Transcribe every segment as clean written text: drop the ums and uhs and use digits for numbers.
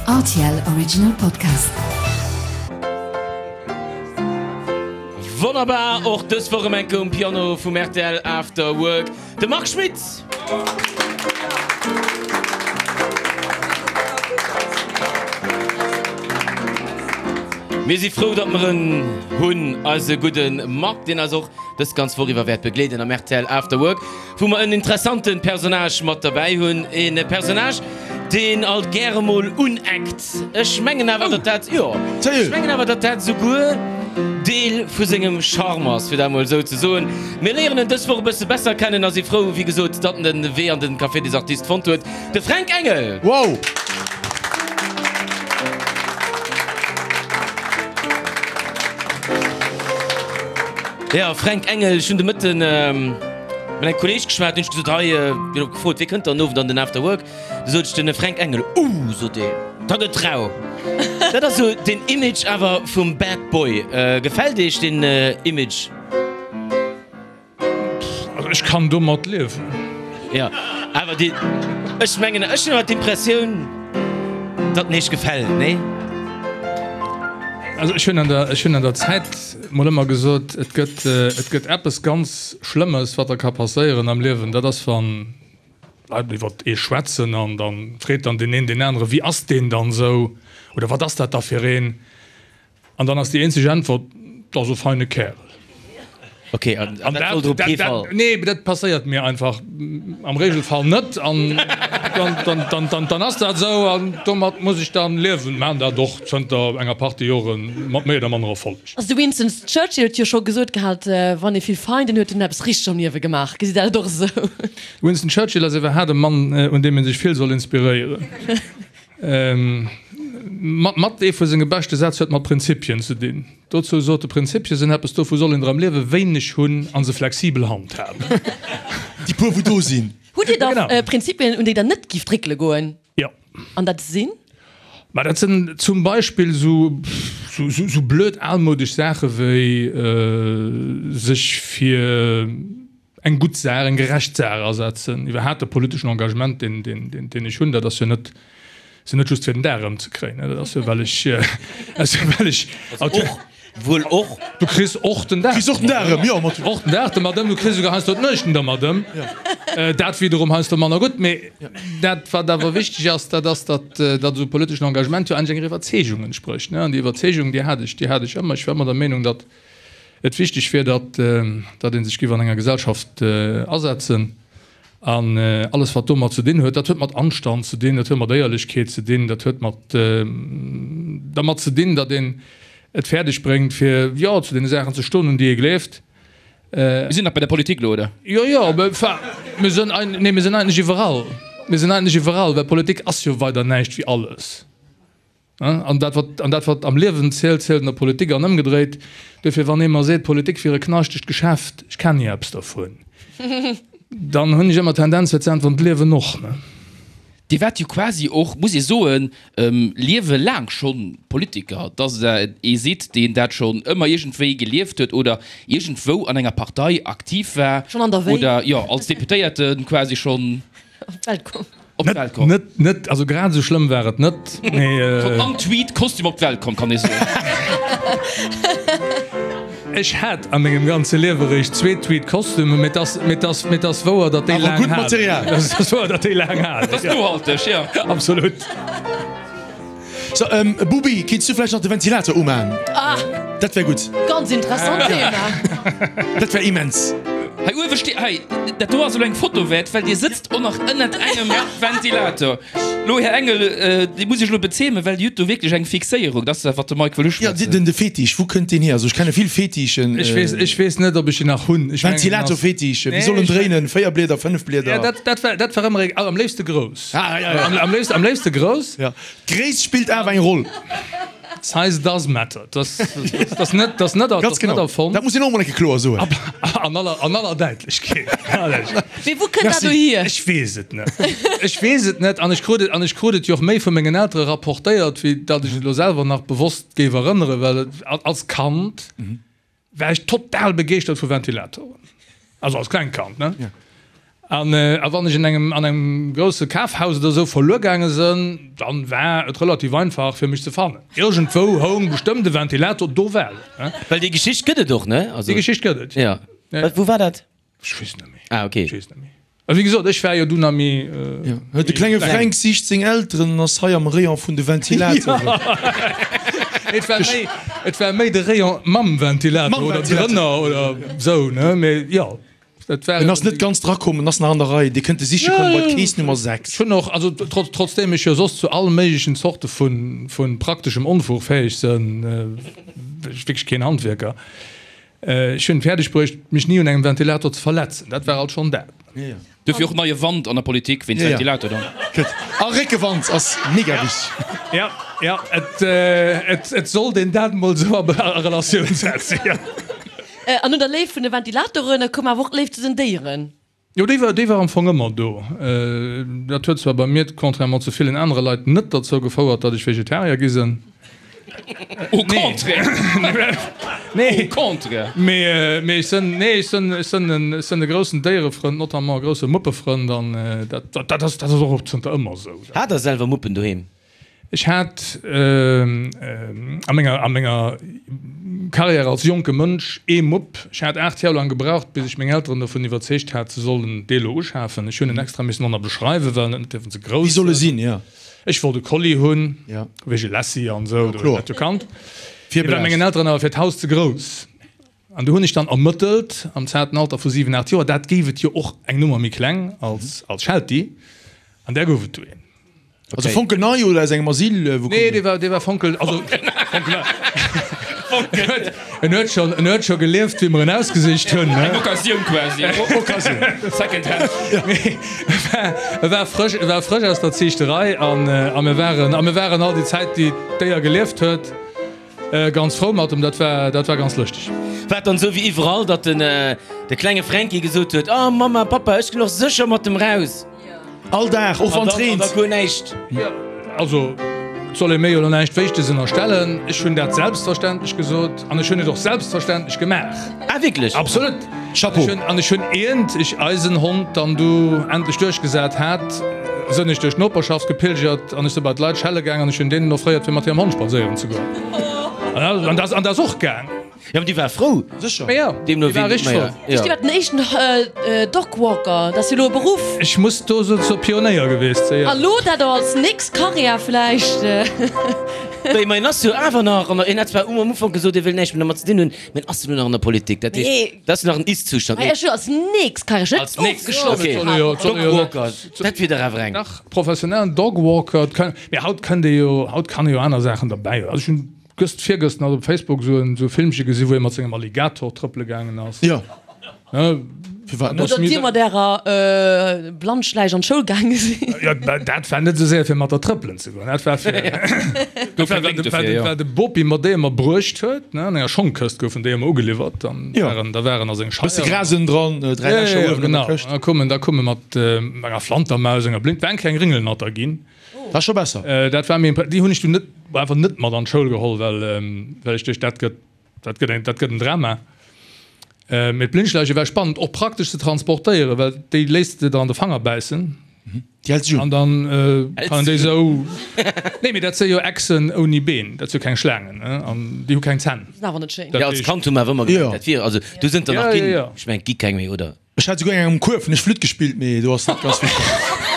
Rtl Original Podcast. Wonnerbar, och dës Woch erëm eng Kéier um Piano vum rtl After Work, de Marc Schmitt! Mir si frou, datt mer en hunn, eise gudde Marc, deen eis och dës ganz Woch iwwer wäert begleeden am rtl After Work. Wou mer en interessante Personnage mat derbäi hunn, e Personnage, deen alt gäre mol uneckt. Ech mengen awer, datt dat, jo, ech mengen awer, datt dat souguer Deel vu sengem Charme ass, fir dat mol esou ze soen. Mir léieren en dës Woch e bësse besser kennen a si frou, wéi gesot, datt en de Wee an de Café des Artistes fonnt huet, de Fränk Engel! Wow! Jo, Fränk Engel, ech hunn de Mëtten mat engem Kolleeg geschwat, hunn ech gesot, hei, hien huet gefrot, wie kënnt dann den Owend an den After Work? Du sot ech, den Fränk Engel. Uh, sot deen, da gëtt rau. Dat ass esou den Image awer vum Bad Boy. Gefält Iech deen Image? Also ech kann domat liewen. Jo, awer déi, ech mengen, ech hunn awer d'Impressioun, datt en Iech gefält, nee? Also ech hunn an der, ech hunn an der Zäit mol ëmmer gesot, et gëtt, et gëtt eppes ganz Schlëmmes, wat der ka passéieren am Liewen, dat ass wann Leit iwwer ee schwätzen an da freet dann deen een deen anere, wéi ass deen dann esou oder wat ass dat da fir een? An dann ass déi eenzeg Äntwert, Dat ass e feine Kärel. Ok, an dat sollt op kee Fall. Nee, dat passéiert mir einfach am Regelfall net. An dann ass dat esou an domat muss ech dann liewen. Maan dat och zënter enger Partie Joren mat méi oder manner Erfolleg. Also de Winston Churchill huet jo scho gesot gehat, wann ee vill Feinden huet, huet en eppes richteg am Liewe gemaach. Gesitt Der dat och esou? Winston Churchill ass iwwerhaat e Mann, un deem ee sech vill soll inspiréieren. Mat ee vu senge beschte Sätz huet mat Prinzipien ze dinn. Dozou sot e, Prinzipie sinn eppes, dovu soll een der am Liewe wéineg hunn a se flexibel handhaben. Déi puer wou do sinn. Hutt Dir da Prinzipien, un déi Der net gift réckele goen? Jo. An dat sinn? Ma dat sinn zum Beispill sou blöd almoudesch Saache wéi sech fir eng gutt Saach, eng gerecht Saach asetzen, iwwerhaapt de politeschen Engagement, deen, deen, deen, deen ech hunn, dat ass jo net, ass jo net just fir den Dag erëmzekréien, dat ass jo well ech, ass jo well ech. Also och, wuel och. Du kriss och den Dag. Kriss och den Dag erëm, jo, mat. Och den Dag domat ëm, du kriss esouguer heiansdo d'Nuechten domat ëm. Dat wiederum heiansdo manner gutt, mee dat wat awer wichteg ass, dat ass, datt, datt esou politeschen Engagement jo eigentlech enger Iwwerzeegung entsprécht, ne, an déi Iwwerzeegung, déi hat ech, déi hat ech ëmmer. Ech war ëmmer der Meenung, datt et wichteg wier, datt datt ee sech géif an enger Gesellschaft asetzen an alles wat domat ze dinn huet, dat huet mat Anstand ze dinn, dat huet mat Éierlechkeet ze dinn, dat huet mat dermat ze dinn, datt een et fäerdeg bréngt fir jo zu deene Saachen ze stoen un déi ee gleeft. Mir sinn nach bei der Politik elo, oder? Jo, jo, enfin, mir sinn, nee, mir sinn eigentlech iwwerall. Mir sinn eigentlech iwwerall, well Politik ass jo weider näischt wéi alles. An dat, wat, an dat, wat am Liewen zielt, zielt an der Politik an ëmgedréit. Duerfir, wann ee mer seet, Politik wier e knaschtegt Geschäft, ech kennen jo eppes dervun, dann hunn ech ëmmer d'Tendenz fir ze äntweren, d'Liewen och, ne? Dir waart jo quasi och, muss ee soen, Liewe laang schonn Politiker, dass Der ee sidd, deen dat schonn ëmmer iergendwéi gelieft huet oder iergendwou an enger Partei aktiv war. Schonn an der Wéi. Oder jo, als Deputéierte quasi schonn. Op d'Welt komm. Op d'Welt komm. Net, net, also grad esou schlëmm war et net, mee. Schonn am Tweed-Kostüm op d'Welt komm, kann ee soen. Ech hat a mengem ganze Liewe eréischt zwee Tweed-Kostümen, mee et ass, mee et ass, mee et ass wouer, datt déi Awer laang gutt halen. Material. Et ass wouer, datt déi laang halen. Dat ass nohalteg, jo. Absolut. So, Bubi, kéints du vläicht nach de Ventilator umaan? Ah! Dat wär gutt. Ganz interessant Thema. Dat wär immens. Hei uewe steet, hei, dat do ass elo eng Foto wäert, well Dir sëtzt och nach ënnert engem Ventilator. Lo, Här Engel, Dir muss Iech elo bezeemen, well Dir hutt do wierklech eng Fixéierung. Dat ass dat, wat de Mike wëll uschwätzen. Jo, den, de Fetisch, wou kënnt deen hier? Also ech kenne vill Fetischen. Ech weess, ech weess net, ob ech en nach hunn. Ech mengen, en ass. Ventilator-Fetisch, wéi soll en dréinen? 4 Blieder, 5 Blieder? Ja, dat, dat war, dat war ëmmer, am léifste grouss. Ah, ja, ja. Am, am léifste, am léifste grouss. Ja. D'Gréisst spillt awer eng Roll. Size does matter. Dat ass net, dat net, Ganz genau. net erfonnt. Dat muss een och emol eng Kéier kloer soen. An aller, an aller Däitlechkeet. Mee wou kënnt dat do hier? Ech weess et net. Ech weess et net. An ech krut et, an ech krut et jo och méi vu mengen Eltere rapportéiert, wéi datt ech et elo selwer nach bewosst géif erënneren, well et als Kand war ech total begeeschtert vu Ventilatoren. Also als klengt Kand, ne? An a wann ech en engem an engem grousse Kafhaus oder esou verluer gaange sënn, dann war et relativ einfach fir mech ze fannen. Iergendwou houng bestëmmt e Ventilator, do war en. Well déi Geschicht gëtt et och, ne? Also. Déi Geschicht gëtt et, jo. Ja. Wou war dat? Ech weess net méi. Ah, okay. Ech weess net méi. A wéi gesot, ech war jo dunn a méi. Ja. De klenge Fränk sicht seng Elteren an ass hei am Rayon vun de Ventilatoren. Et war méi, et war méi de Rayon mam Ventilator oder drënner oder esou, ne? Mee jo. Dat war En ass net ganz drakomm, en ass nach an der Rei. Dir kënnt e siche kommen bei d'Kees Nummer 6. Ech hunn och, also trotz, trotzdeem ech jo soss zu all méiglechen Zorte vu, vu prakteschem Onfug fäeg sënn, ech wierklech keen Handwierker, ech hunn fäerdeg bruecht, mech ni un engem Ventilator ze verletzen. Dat war alt schonn dat. Duerfir och neie Wand an der Politik wéinst Ventilator dann. A Réckewand ass mega wichteg. Ja, ja, et, et, et sollt een dat emol esou a Relatioun setzen, jo. An no der Léift vun de Ventilatoren koum awer och d'Léift zu den Déieren. Jo, déi war, déi war am Fong ëmmer do. Dat huet zwar bei mir, contrairement zu villen anere Leit, net derzou gefouert, datt ech Vegetarier gi sinn. Au contraire! Nee. Au contraire! Mee, mee ech sënn, nee, ech sënn, ech sënn en, ech sënn e groussen Déierefrënd, notamment e grousse Muppefrënd an dat, dat ass, dat ass och zënter ëmmer esou. Hat Der selwer Muppen doheem? Ech hat a menger, a menger Carrière als jonke Mënsch ee Mupp. Ech hat 8 Joer laang gebraucht, bis ech meng Elteren dovun iwwerzeegt hat, se sollen dee lo uschafen. Ech hunn en extra missen ënner beschreiwen, well en net dierfen ze grouss Wéi soll e sinn, jo. Ech wollt e Collie hunn, Ja. wéi e Lassie an esou, Jo, kloer. dat jo kannt. Dee war mengen Elteren awer fir d'Haus ze grouss. An du hunn ech dann ermëttelt, am zarten Alter vu 7, 8 Joer, dat géif et jo och eng Nummer méi kleng als, als Sheltie, an där gouf et du een. Also fonkelnei oder aus engem Asyl? Wou Nee, dee war, dee war fonkel, also fonkelnei. En huet schonn, en huet scho gelieft, wéi mer en ausgesicht hunn, ne? Eng Occasioun quasi. Occasioun. Second hand. Mee e war, e war frësch, e war frësch aus der Ziichterei an, a mir waren, a mir waren all déi Zäit, déi d'Déier gelieft huet, Ganz frou mat em, dat war, dat war ganz lëschteg. War et dann esou wéi iwwerall, datt den de klenge Fränki gesot huet, Oh Mamma, Pappa, ech ginn och sécher mat em raus? All Dag, och wann et reent. An da guer näischt. Also, et soll ee mir jo elo näischt Wéichteges ënnerstellen. Ech hunn dat selbstverständlech gesot an ech hunn et och selbstverständlech gemaach. Ah, wierklech? Absolut! Chapeau! Ech hunn, an ech hunn, iernt ech eisen Hond dann du endlech duerchgesat hat, sënn ech duerch d'Noperschaft gepilgert an ech si bei d'Leit schelle gaang an ech hunn deenen offréiert fir mat hirem Hond spadséieren ze goen. An dat, an dat ass och gaang. Jo, mee déi war frou. Sécher. Ma jo, Deemno déi war wéi, richteg ma frou. jo. Ech war den éischten Dogwalker, dat ass jo elo e Beruff. Ech muss do sou zur Pionéier geweest sinn, jo. A lo dat och als nächst Karriär vläicht. Mee en ass jo awer nach an der, en hat zwar um Ufank gesot, e wëll näischt méi domat ze dinn hunn, mee en ass jo elo nach an der Politik. Dat heescht, dat ass jo nach en Ist-Zustand. Ech jo als nächst Karriär, ech Als nächst, ofgeschloss. okay. Dogwalker, dat wier dach awer eng. Nach professionellen Dogwalker, mee haut kënnt ee jo, haut kann ee jo aner Saachen derbäi. Also ech hunn Gëscht, virgëscht nach op Facebook esou en esou Filmche gesi wou ee mat sengem Alligator trëppele gaangen ass. Jo. Ne? Firwat net? Oder dir mat ärer Blannschläich an d'Schoul gaange sinn. Jo, dat war net esou séier fir mat der trëppelen ze goen. Dat war fir, Gouf keng Lénk dofir, jo. war de Bopi mer déi ëmmer bruecht huet, ne, an enger Schongkëscht goufen déi ëmmer ugeliwwert. Dann waren, da waren a seng Scheier. Bësse Gras ënnendran, 3 Lächer uewen an der Këscht. Genau. Da koumen, da koume mat enger Flantermaus, enger Blind, war eng kleng Ringelnatter ginn. Dat ass scho besser. Dat war mir, déi hunn ech dunn net, einfach net mat an d'Schoul geholl, well, well ech duecht, dat gëtt, dat gëtt eng, dat gëtt en Drama. Mee d'Blindschläiche war spannend, och praktesch ze transportéieren, well déi léisst de der an de Fanger bäissen. Déi hält sech un. An dann kann een déi esou, nee, mee dat si jo Echsen ouni Been, dat si jo keng Schlaangen, ne, an déi hu keng Zänn. Sinn awer net schéin. Jo, als Kand hu mer awer ëmmer gemengt, dat wier, also do sënn der nach ginn, ech mengen, et gi keng méi, oder? Ech hat souguer eng am Kuerf hunn ech Flütt gespillt, mee do ass net ganz vill komm.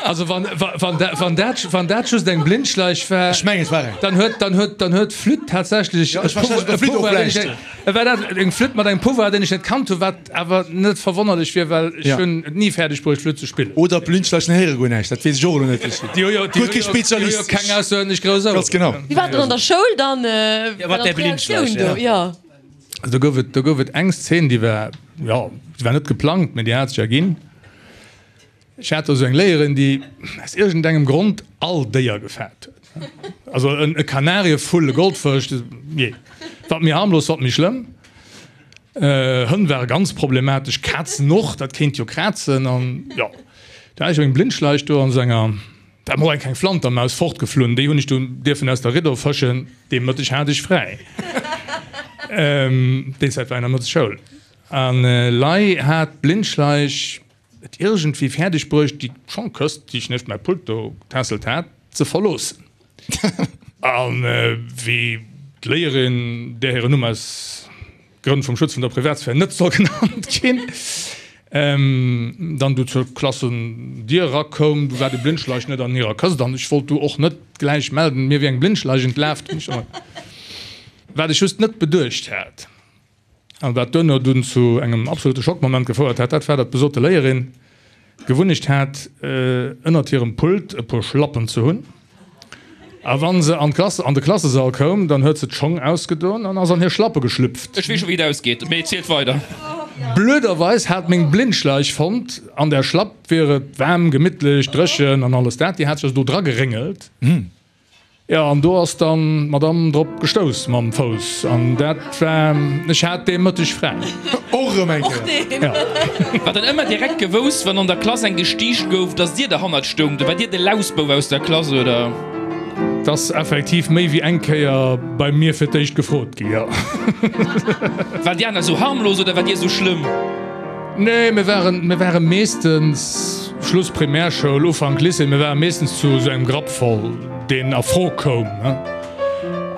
Also wann, wann, wann dat, wann dat just eng Blindschleich war, Ech mengen et war eng. dann huet, dann huet, dann huet d'Flütt tatsächlech Ja, ech war schlecht op der Flütt och vläicht. War dat eng Flütt mat engem Pouvoir, deen ech net kannt hunn, wat awer net verwonnerlech wier, well ech Ja. hunn et ni fäerdeg bruecht Flütt ze spillen. Oder d'Blindschleichen héiere guer näischt, dat weess ech och elo net. Ech Déi hu jo, déi guer hu kee jo, déi hu jo Spezialist. keng aussergewéinlech grouss Oueren. Ganz genau. Wéi war dat an der Schoul dann? Ja, mat där Blindschleich, ja. ja. Also do gouf et, do gouf et eng Szene, déi war, jo, déi war net geplangt, mä déi hat sech erginn. Ech hat do esou eng Léierin, déi aus iergendengem Grond all Déier gefaart huet. Also en e Kanarievull, e Goldfësch, jee, wat méi harmlos, wat méi schlëmm. Hënn ware ganz problematesch, Kazen och, dat kéint jo krazen an jo. Da hat ech eng Blindschleich do an esou enger. Da mol eng kleng Flantermaus fortgeflunn, déi hunn ech dunn dierfen aus der Riddo fëschen. Dee Mëtteg hat ech fräi. Déi Zäit war een am Mëtteg Schoul. An lei hat d'Blindschleich. et iergendwéi fäerdeg bruecht, déi Schongkëscht, déi ech nieft mäi Pult do getässelt hat, ze verloossen. An wéi d'Léierin, där hiren Numm aus Grënn vum Schutz vun der Privatsphär net soll genannt ginn, dann du zur Klassendier erakoum, du war de Blindschleich net an hirer Këscht an ech wollt du och net gläich melden, mir wier eng Blindschleich entlaf. Wat ech just net beduecht hat an wat duerno dunn zu engem absolute Schockmoment gefouert hat, dat war, datt besote Léierin d'Gewunnecht hat, ënnert hirem Pult e puer Schlappen ze hunn. A wa se an d'Klass, an de Klassesall koum, dann huet se d'Schong ausgedoen an ass an hir Schlappe geschlüpft. Ech weess scho wéi et ausgeet, mee zielt weider. Blöderweis hat meng Blindschleich fonnt, an der Schlapp wier et waarm, gemittlech, dréchen an alles dat. Déi hat sech also do dra geréngelt. Jo, an do ass dann d'Madame drop gestouss mam Fouss, an dat war, ech hat dee Mëtteg fräi. Och erëm eng Kéier. Jo. War dann ëmmer direkt gewousst, wann an der Klass eng gestiicht gouf, dass dir derhannert stoungt? War dir de Lausbouf aus der Klass, oder? 't ass effektiv méi wéi eng Kéier bei mir fir d'éischt gefrot gi, jo. Waren déi aner esou harmlos oder war dir esou schlëmm? Nee, mir waren, mir ware meeschtens, Schluss Primärschoul, Ufank Lycée, mir ware meeschtens zu esou engem Grapp voll, deen a Fro koum, ne?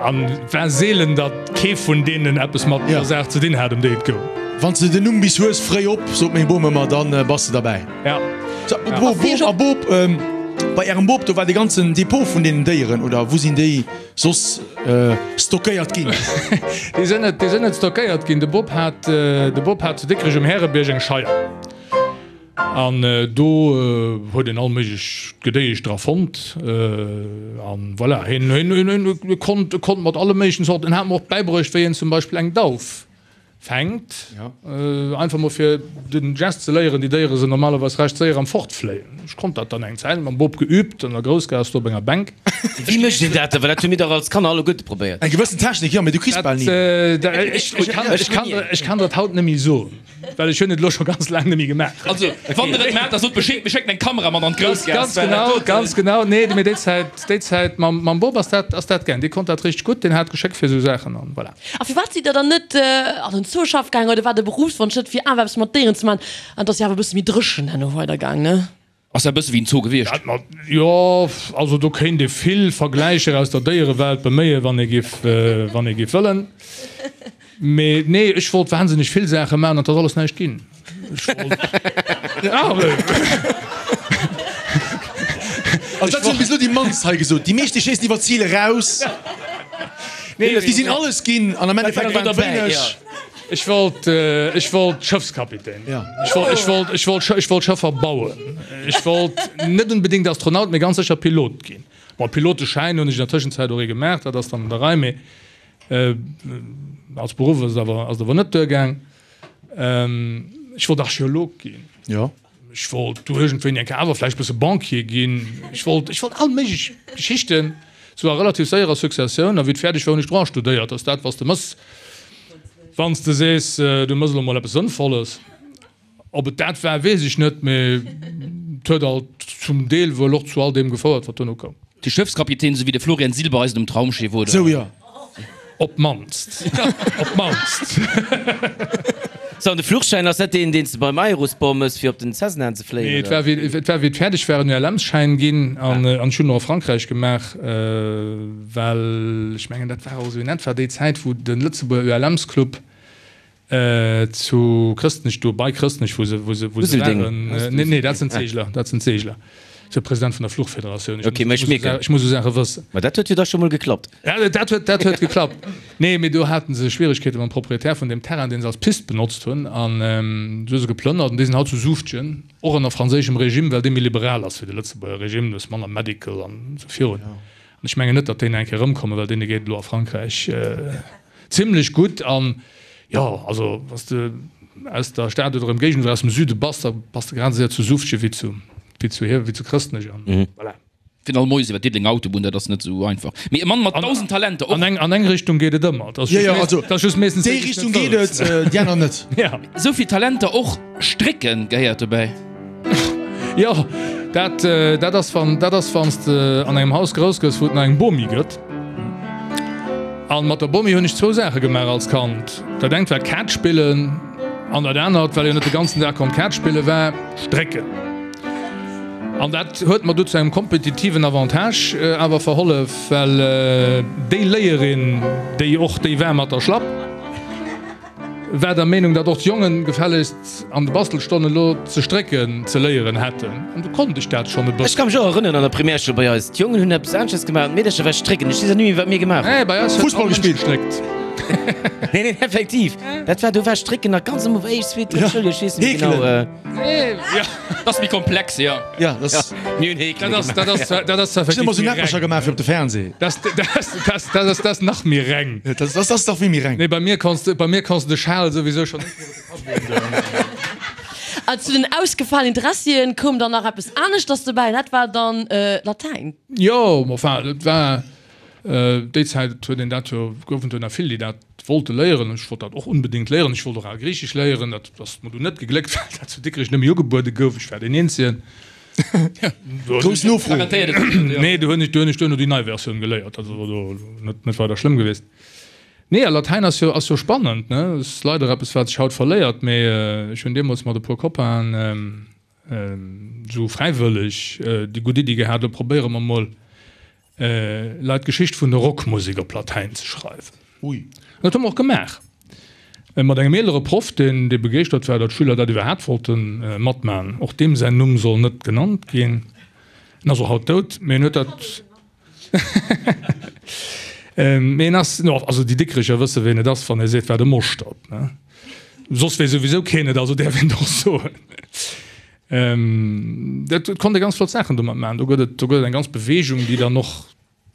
An et war seelen, datt kee vun deenen eppes mat der Saach ze dinn hat, ëm déi et goung. Wann s de den Numm bis hues, fréi op, sot meng Bom ëmmer, dann bass de derbäi. Ja. So, Bop, a Bop, bei ärem Bop, do war de ganzen Depot vun deenen Déieren, oder wou sinn déi soss stockéiert ginn? Déi sinn net, déi sinn net stockéiert ginn. De Bop hat, de Bop hat zu Dikrech um Härebierg eng Scheier. An do huet een all méiglech Gedéiesch dra fonnt. An voilà, hien, hien, hien konnt, konnt mat alle méiglechen Zorten. En hat mer och bäibruecht, wéi een zum Beispill eng Dauf fänkt. Einfach mol fir den Gest ze léieren, déi Déiere sinn normalerweis recht séier am Fortfléien. Ech konnt dat dann eng Zäit mam Bop geübt an der Groussgaass do op enger Bänk. Wéi mécht een dat dann? Well dat hu mir dach als Kanner alleguerte probéiert. Eng gewëssen Technik, jo, mee du kriss bal ni. Ech kann dat haut net méi soen, well ech hunn et elo scho ganz laang net méi gemaach. Also, wann der et maacht, da sot Bescheed, mir schécken eng Kamera mat an d'Groussgaass. Ganz genau, ganz genau. Nee, mee déi Zäit, déi Zäit mam Bop ass dat, ass dat gaang. Dee konnt dat richteg gutt, deen hat Geschéck fir esou Saachen an voilà. A firwat sidd der dann net an den Zoo schaff gaangen oder war de Berufswonsch net fir awer eppes mat Déieren ze man? An et ass jo awer e bësse méi dréchen herno weider gaang, ne? Ass dat e bësse wéi en Zoo gewiescht? Dat mat, jo, also do kéint ee vill Vergläicher aus der Déierewelt beméien, wann ee giff, wann ee giff wëllen. Mee nee, ech wollt wahnsinneg vill Saache maachen an et ass alles näischt ginn. Ech wollt, ja. Also dat hunn bis elo déi mannst hei gesot. Déi meescht déi schéissen iwwer d'Zil eraus. Nee, déi sinn alles ginn an am Endeffekt waren et wéineg. Ech wollt, ech wollt Schëffskapitän ginn. Ech wollt, ech wollt, ech wollt, ech wollt Schëffer bauen. Ech wollt net unbedéngt Astronaut, mee ganz sécher Pilot ginn. Bon, Piloteschäin hunn ech an der Tëschenzäit och ee gemaach, dat ass dann an der Rei, mee als Beruff ass et awer, ass et awer net duergaang. Ech wollt Archeolog ginn. Jo. Ech wollt du iergendwéini eng Kéier awer vläicht e bësse Banquier ginn. Ech wollt, ech wollt all méiglech Geschichten, sou a relativ séierer Successioun. A wéi et fäerdeg war, hunn ech Droit studéiert. Ass dat, wat s de mëss, wann s de sees, du mëss elo mol eppes Sënnvolles. Ob et dat war, weess ech net, mee et huet alt zum Deel wuel och zu all deem gefouert, wat duerno koum. De Schëffskapitän, sou wéi de Florian Silbereisen um Traumschiff, oder? Sou, jo. Op d'mannst. Op d'mannst. Sou, an de Fluchschäin, ass dat deen, deen s de beim Aerosport mëss, fir op den Cessna ze fléien, Nee, et war wéi, et war wéi et fäerdeg war, en ULM-Schäin ginn an ech hunn en och a Frankräich gemaach, well ech mengen, dat war och esou in etwa déi Zäit, wou de Lëtzebuerger ULMs-Club Zu Chrëstnech, do bei Chrëstnech, wou se, wou se, wou se waren. Nee, nee, dat sinn d'Seegler, dat sinn d'Seegler. Ech sou President vun der Fluchfederatioun. Ech Okay, mä ech mierken. Ech muss esou Saache wëssen. Ma dat huet jo da scho mol geklappt. Ja, dat huet, dat huet geklappt. Nee, mee do hate se Schwieregkeete mam Proprietär vun deem Terrain, deen se als Pist benotzt hunn. An du hu se geplënnert. An déi sinn haut zu Suuftgen, och ënner franséischem Regime, well dee méi liberal ass wéi de Lëtzebuerger Regime. Du hues manner Medical an esou virun. An ech mengen net, datt déi nach eng Kéier erëmkommen, well deene geet et elo a Frankräich Zimlech gutt an jo, also wanns de aus der Stad oder Emgéigend oder aus dem Süde bass, da bass de grad esou séier zu Suffgen wéi zu wéi zu hier wéi zu Chrëstnech an voilà. Fir all Moies iwwer d'Diddelenger Autobunn, dat ass net esou einfach. Mee e Mann mat 1.000 Talenter och. An eng an eng Richtung geet et ëmmer, et ass Jo, just jo, mees also et ass just meeschtens déi déi, déi s Richtung net geet wëlls. et, déi aner net. Ja. Esou vill Talenter och. Strécken gehéiert dobäi. Jo, dat, dat ass wann, dat ass wann s de an engem Haus grouss gëss, wou et nach eng Bomi gëtt. An mat der Bomi hunn ech zwou Saache gemaach als Kand. Dat engt war Kaart spillen. An dat anert, well een net de ganzen Dag konnt Kaart spillen, war Strécken. An dat huet mer du zu engem kompetitiven Avantage awer verhollef, well déi Léierin, déi och déi war mat der Schlapp, war der Meenung, datt och d'Jongen gefällegst an de Bastelstonnen elo ze strécken ze léieren hätten. An du konnt ech dat schonn e Ech bëssen. ka mech och erënneren an der Primärschoul bei eis, d'Jongen hunn eppes aneschters gemaach an d'Meedercher war strécken. Ech weess och net méi wat mir gemaach hunn. Nee, bei eis huet Fussball all Mënsch gespillt. gestréckt. Nee, nee, effektiv, dat war, do war strécken nach ganz am Ufank, éischt, zweet, drëtt Schouljoer, ech weess net méi genau. Heekelen. Nee, ja. Dat ass méi komplex, jo. Ja, dat ass. Mir hunn Heekele Dat ass, gemaach. dat ass, dat ass Ech hunn effektiv ëmmer sou méi Näppercher reng. gemaach fir op de Fernseh. Dat, dat, dat, dat ass, dat ass nach méi reng. Dat, dat ass dach wéi méi reng. Nee, bei mir konns de, bei mir konns de de Schal souwisou schonn net méi op de Kapp doen. An zu den ausgefalenen Interessien koum dann nach eppes aneschters dobäi, dat war dann Latäin. Jo, enfin, dat war déi Zäit huet een dat jo, goufen et jo nach vill, déi dat wollte léieren. Ech wollt dat och unbedéngt léieren. Ech wollt och al Griichesch léieren. Dat ass mer dunn net gegléckt, well dat zu Dikrech net méi ugebuede gouf. Ech war deen Eenzegen. Grouss Nofro. Nee, do hunn ech, do hunn ech duerno déi nei Versioun geléiert. Dat ass awer do net, net weider schlëmm gewiescht. Nee, a Latäin ass jo, ass jo spannend, ne? Ass leider eppes, wat sech haut verléiert, mee ech hunn deemools mat e puer Copainen esou fräiwëlleg déi gutt Iddi gehat, lo probéiere mer mol Leit d'Geschicht vun der Rockmusek op Latäin ze schreiwen. Ui. An dat hu mer och gemaach. Mat engem eelere Proff, deen dee begeeschtert war, datt d'Schüler dat iwwerhaapt wollte matmachen. Och deem säin Numm soll net genannt ginn. En ass och haut dout, mee en huet dat. Mee en ass, no, also déi Dikrecher wësse ween et ass, wann ee seet, war de Moschtert, ne? Soss weess souwisou keen et, also däerf een et och soen. Dat konnt ee ganz flott Saachen domat maachen. Do gëtt et, do gëtt et eng ganz Beweegung, déi dann och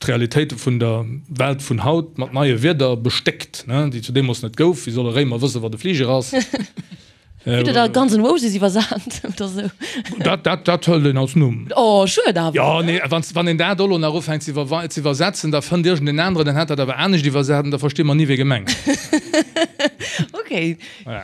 d'Realitéite vun der Welt vun haut mat neie Wierder bestéckt, ne, déi zu deemools net gouf. Wéi soll e Réimer wëssen, wat e Fliger ass? Hutt Der da Guns N' Roses iwwersat oder sou? Dat, dat, dat hëlt een als Numm. Oh, schued awer. Jo, nee, wann, wann een dat elo nach ufänkt ze iwwer, ze iwwersetzen, da fënnt iergendeen aneren, deen hätt dat awer anescht iwwersat an da versti mer ni, wee gemengt ass. Okay.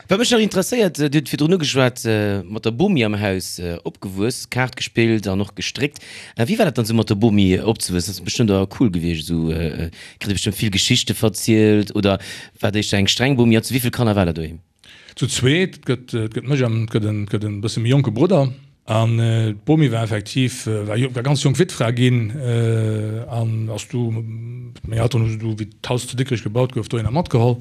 Wat mech nach interesséiert, Dir hutt virdrun ugeschwat, mat der Bomi am Haus opgewuess, Kaart gespillt an och gestréckt. Wéi war dat dann esou mat der Bomi opzewuessen? Dat ass bestëmmt awer cool gewiescht esou, kritt Dir bestëmmt vill Geschichte verzielt oder war et éischter eng streng Bomi? An zu wéi vill Kanner war der doheem? Zu zweet, et gëtt, et gëtt mech an et gëtt en, et gëtt en bësse méi jonke Brudder. An d'Bomi war effektiv, war war ganz jonk Wittfra ginn an ass du, meng Elteren hu se du, wéi d'Haus zu Dikrech gebaut gouf, dohinner matgeholl.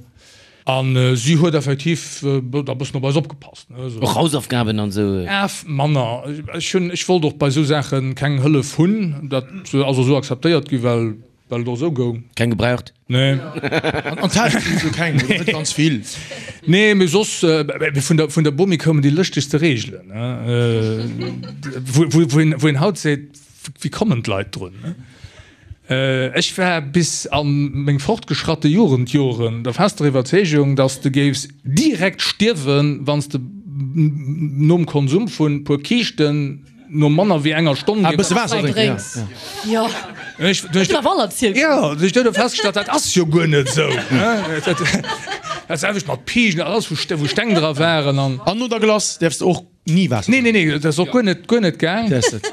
A si huet effektiv da bëssen op eis opgepasst, ne, esou. Och Hausaufgaben an esou? Af, manner. Ech hunn, ech wollt och bei esou Saache keng Hëllef hunn. Dat ass och esou akzeptéiert gi, well, well et och esou goung. Keng gebraucht? Nee. An d'Täsch sinn esou keng, oder net ganz vill. Nee, mee soss, vun der, vun der Bomi koumen déi lëschtegste Reegelen, ne, wou, wou, wou een, wou een haut seet, Wéi kommen d'Leit drun? Ech war bis a meng fortgeschratte Jugendjoren der fester Iwwerzeegung, dass de géifs direkt stierwen, wann s de nom Konsum vun puer Kiischten no manner wéi enger Stonn géifs. E bësse Waasser drénken, jo. Jo, ech hunn du festgestallt, dat ass jo guer net esou. Dat selwecht mat Piigen, alles wou Steng dra waren. An no der Glace däerfs de och Ni Waasser Nee, nee, nee, dat ass och guer net, guer net gaang. Däers net.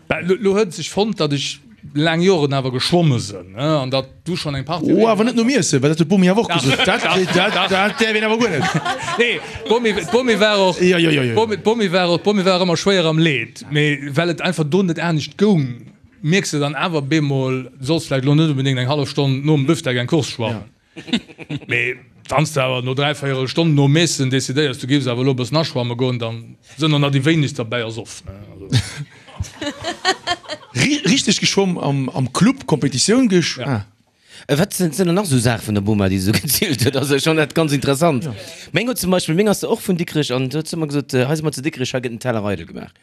Bah, lo, lo huet et sech fonnt, datt ech laang Joren awer geschwomme sënn, ne, an datt du schonn eng Partie. Oh, awer net nom Iessen, well dat huet d'Bomi awer och gesot. Dat, dat, dat däerf een awer guer net. Nee, d'Bomi, d'Bomi war och, Jo, jo, jo, jo. d'Bomi, d'Bomi war och, d'Bomi war ëmmer schwéier am Leed, mee well et einfach do net anescht goung, mierks de dann awer bemol, du solls vläicht lo net unbedéngt eng hallef Stonn nom Büftek eng Course schwammen. Mee wann s de awer no dräivéierel Stonn nom Eessen decidéiers, du géifs awer elo e bëssen aschwamme goen, dann sënn och nach déi wéinegst derbäi ersoff. Richteg geschwomm am Club, Competitioun gesch. Ja. Wat sinn dann nach esou Saache vun der Boma, déi se esou gezielt huet? Also ech fannen dat ganz interessant. Meng huet zum Beispill, meng ass och vun Dikrech an huet ëmmer gesot, hei si mer zu Dikrech, hei gëtt en Teller eidel gemaach.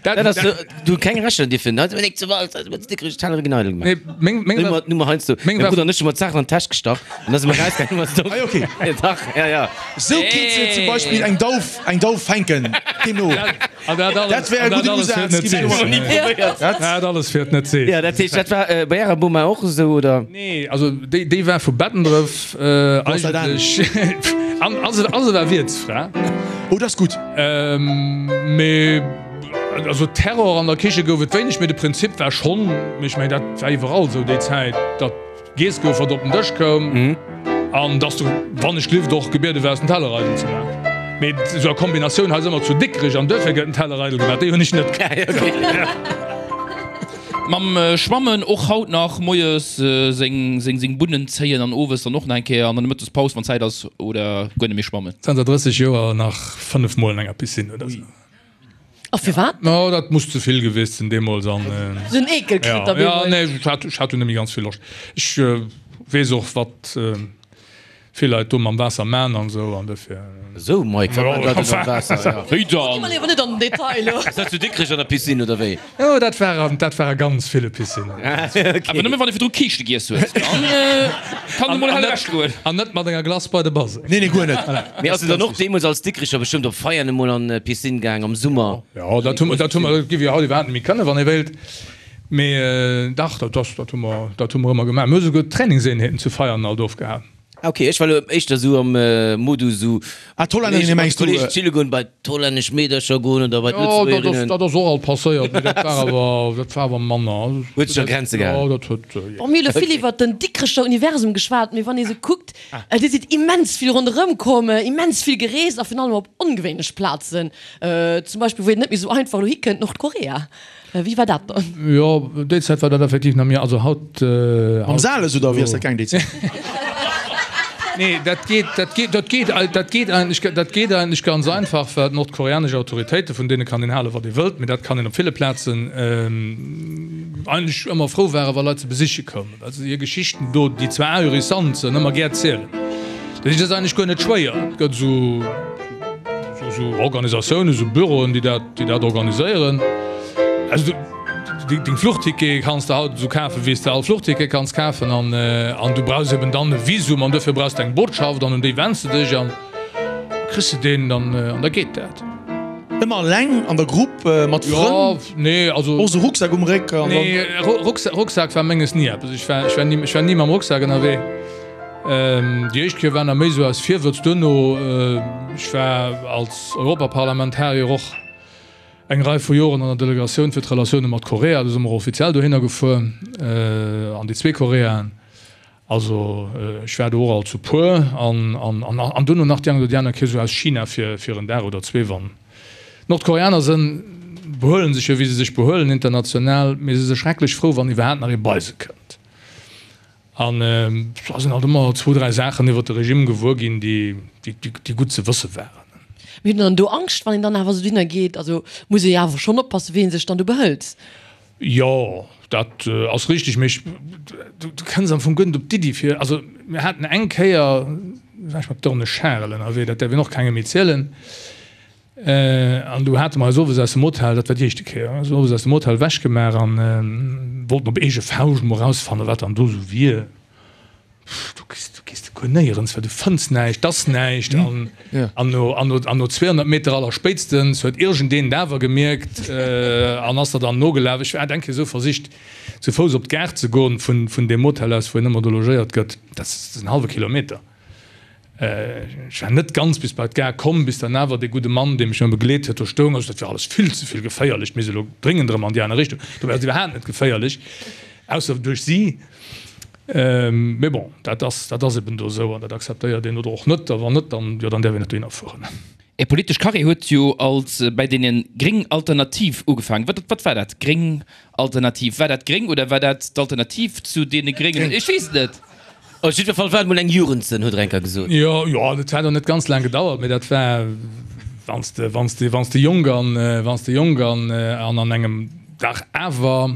Dat ass so, du keng Recher dierfen. Hei si mer nik zu Walz, hei si mer zu Dikrech, Tellere ginn eidel gemaach. Nee, meng, meng Nummer, Nummer heiansdo. Meng Mäi war- Brudder an ech hu mer d'Saachen an d'Täsch gestach an da si mer rausgaangen, hu mer se do. Ah, okay. Ja, dach, ja, ja. Sou kinns de zum Beispill eng Dauf, eng Dauf fänken, deemno. An dat alles, Dat wär e an dat gudden alles fir Usaz, et net ginn ech sees. ni probéiert. Dat alles fir et net sees. Ja, dat heescht, dat war äh, bei ärer Boma och esou, oder? Nee, also déi, déi war vu Bettendref äh, ass dat eigentlech. An, a se, a se war Wiertsfra. Oh, dat ass gutt. Mee also Terror an der Kiche gouf et wéineg, mee de Prinzip war schonn, mee ech mengen dat war iwwerall esou déi Zäit, datt giess gouf wat op den Dësch koum. An dass du, wann ech glift, och gebiede waars den Teller eidel ze maachen. Mee esou a Kombinatioun hei si mer zu Dikrech an duerfir gëtt den Teller eidel gemaach, déi hunn ech net kritt. Mam Schwammen och haut nach moies seng seng Bunnen zéien an owes dann och nach eng Kéier an der Mëttespaus wann Zäit ass oder guer net méi schwammen? Zanter 30 Joer nach 5 mol an enger Piscine oder sou. A firwat? No, dat muss ze vill gewiescht sinn deemools an. Sou en Eekel kritt da Ja, ja, nee, ech hat, ech hat dunn net méi ganz vill Loscht. Ech weess och, wat vill Leit do mam Waasser man an esou an dofir. Esou, Mike, wat man Leit do mam Waasser? Ja. Wéi Gi dann? mer léiwer net an den Detail elo. Ass dat zu Dikrech an der Piscine oder wéi? Jo, dat war an, dat war a ganz ville Piscinnen. Awer nëmme wann ee virdru Kiischte giess huet, dann kann et emol hell ewech goen. An net mat enger Glace bei de Baseng. Nee, nee, guer net. Mee ass de dann och deemools als Dikricher bestëmmt op Feiern emol an d'Piscine gaang am Summer? Jo, dat hu mer, dat hu mer, dat géif jo haut iwwerhaapt net méi kënnen, wann ee wéilt. Mee dach, dat ass, dat hu mer, dat hu mer ëmmer gemaach. Mir hu souguer Trainingseenheeten zu Veianen alt ofgehal. Ah ok, ech war elo éischter sou am Modus sou Ah, d'Hollännerinnen mengs du? Kolleegen chille goen, bei d'hollännesch Meedercher goen oder bei Jo, dat ass, d'Lëtzebuergerinnen. dat ass och alt passéiert, mee dat war awer, dat war awer manner. Huet sech a Grenze gehalen. Jo, dat huet, jo. Bon, mir hu elo vill iwwert den Dikrecher Universum geschwat, mee wann ee sou kuckt, Dir sidd immens vill ronderëm komm, immens vill gereest a virun allem op ongewéinlech Plazen, zum Beispill wou een net méi sou einfach elo hikënnt, Nordkorea. Wéi war dat dann? Jo, déi Zäit war dat effektiv nach méi, also haut. Mam Sales oder wéi ass dat gaang déi Zäit? Nee, dat geet, dat geet, dat geet, dat geet eigentlech, dat geet eigentlech ganz einfach, well d'nordkoreanesch Autoritéiten, vun deene kann een halen, wat ee wëllt, mee dat kann een op ville Plazen, eigentlech ëmmer frou waren, wa Leit se besiche koumen, well se hir Geschichten do, déi zwar ahurissant sënn, ëmmer gär zielen. Dat heescht, et ass eigentlech guer net schwéier. Et gëtt esou. Esou Organisatiounen, esou Büroen, déi dat, déi dat organiséieren. Also du, deng Fluchtickete kanns de haut esou kafen, wéi s de all Fluchticket kanns kafen. An, an du brauchs eben dann e Visum an duerfir brauchs de eng Botschaft an un déi wenns de dech an kriss de deen dann an da geet dat. Ëmmer eleng, an der Grupp, mat Frënn? Jo, nee, also. Och esou Rucksak um Réck an dann. Nee, Rucksak war menges ni eppes. Ech war, ech war ni, ech war ni mam Rucksak ënnerwee. Déi éischt Kéier war nach méi sou aus Virwëtz. Duerno, ech war als Europaparlamentarier och eng Rei vu Joren an der Delegatioun fir d'Relatioune mat Korea, do si mer och offiziell dohinner gefuer, an déi zwee Koreaen. Also ech war do och alt zu puer an an duerno nach déi eng oder déi aner Kéier sou aus China fir fir en Dag oder zwee. Wann d'Nordkoreaner sënn, behuelen sech jo wéi se sech behuelen international, mee se si schrecklech frou wann iwwerhaapt nach ee bei se kënnt. An da sinn alt ëmmer zwou, dräi Saachen iwwer de Regime gewuer ginn, déi gutt ze wësse waren. Mee huet een dann do Angscht, wann een dann awer esou dohinner geet? Also muss ee jo awer schonn oppassen, wéi ee sech dann do behëlt. Jo, dat ass richteg, mee ech, du kënns am Fong guer net op d'Iddi fir, also mir haten eng Kéier, war ech mat Dorne Charel ënnerwee, dat däerf een och kengem méi zielen, An du hate mer eis owes aus dem Hotel, dat war déi éischte Kéier, eis owes aus dem Hotel ewechgemaach an wollten op eege Fauscht mol erausfannen, wat dann do esou wier. Du gees, du gees guer néierens, well du fënns näischt, 't ass näischt. An, an no, an no, an no 200 Meter allerspéitstens huet iergendeen et awer gemierkt an ass der dann nogelaf. Ech hat eng Kéier esou versicht, zu Fouss op d'Gare ze goen vun, vun deem Hotel aus, wou een ëmmer do logéiert gëtt. Dat ass en hallwe Kilometer. Ech war net ganz bis bei d'Gare komm, bis dann awer dee gudde Mann, dee mech ëmmer begleet huet, do stoung. Also dat war alles vill ze vill geféierlech, mir si elo dréngend erëm an déi aner Richtung. Dobäi ass et iwwerhaapt net geféierlech, ausser duerch si. Mee bon, dat ass, dat ass eben do esou an dat akzeptéiert een oder och net. A wann net, dann, jo, dann däerf een net dohinner fueren. Är politesch Carrière huet jo als bäi deene Gréng Alternativ ugefaangen. Wat, wat war dat, Gréng Alternativ? War dat gréng oder war dat d'Alternativ zu deene Gréngen? Ech weess et net. Op jiddwer Fall war et mol eng Jugendsënn, huet Renker gesot. Jo, jo, dat hat och net ganz laang gedauert, mee dat war, wann s de, wann s de, wann s de jonk an, wann s de jonk an, an an engem dach awer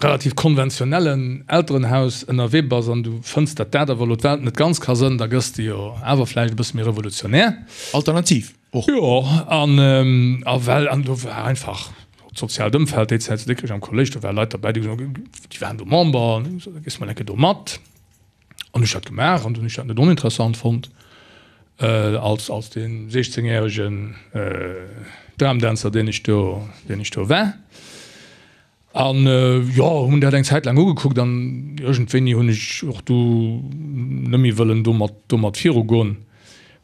relativ konventionellen Elterenhaus ënnerwee bass an du fënns, datt dat awer elo d'Welt net ganz ka sënn, da gëss de jo awer vläicht e bësse méi revolutionär. Alternativ och. Jo, an, a well, an do war einfach d'soziaalt Ëmfeld déi Zäit zu Dikrech am Kolléisch, do ware Leit derbäi, déi gesot hunn, déi waren do Member, an hu gesot, da gees de mol eng Kéier do mat. An ech dat gemaach an dunn hu ech dat net oninteressant fonnt, als, als dee 16-järegen Dramdänzer, deen ech do, deen ech do war. An jo, hunn dat eng Zäit laang ugekuckt an iergendwéini hunn ech och du net méi wëllen domat, domat virugoen.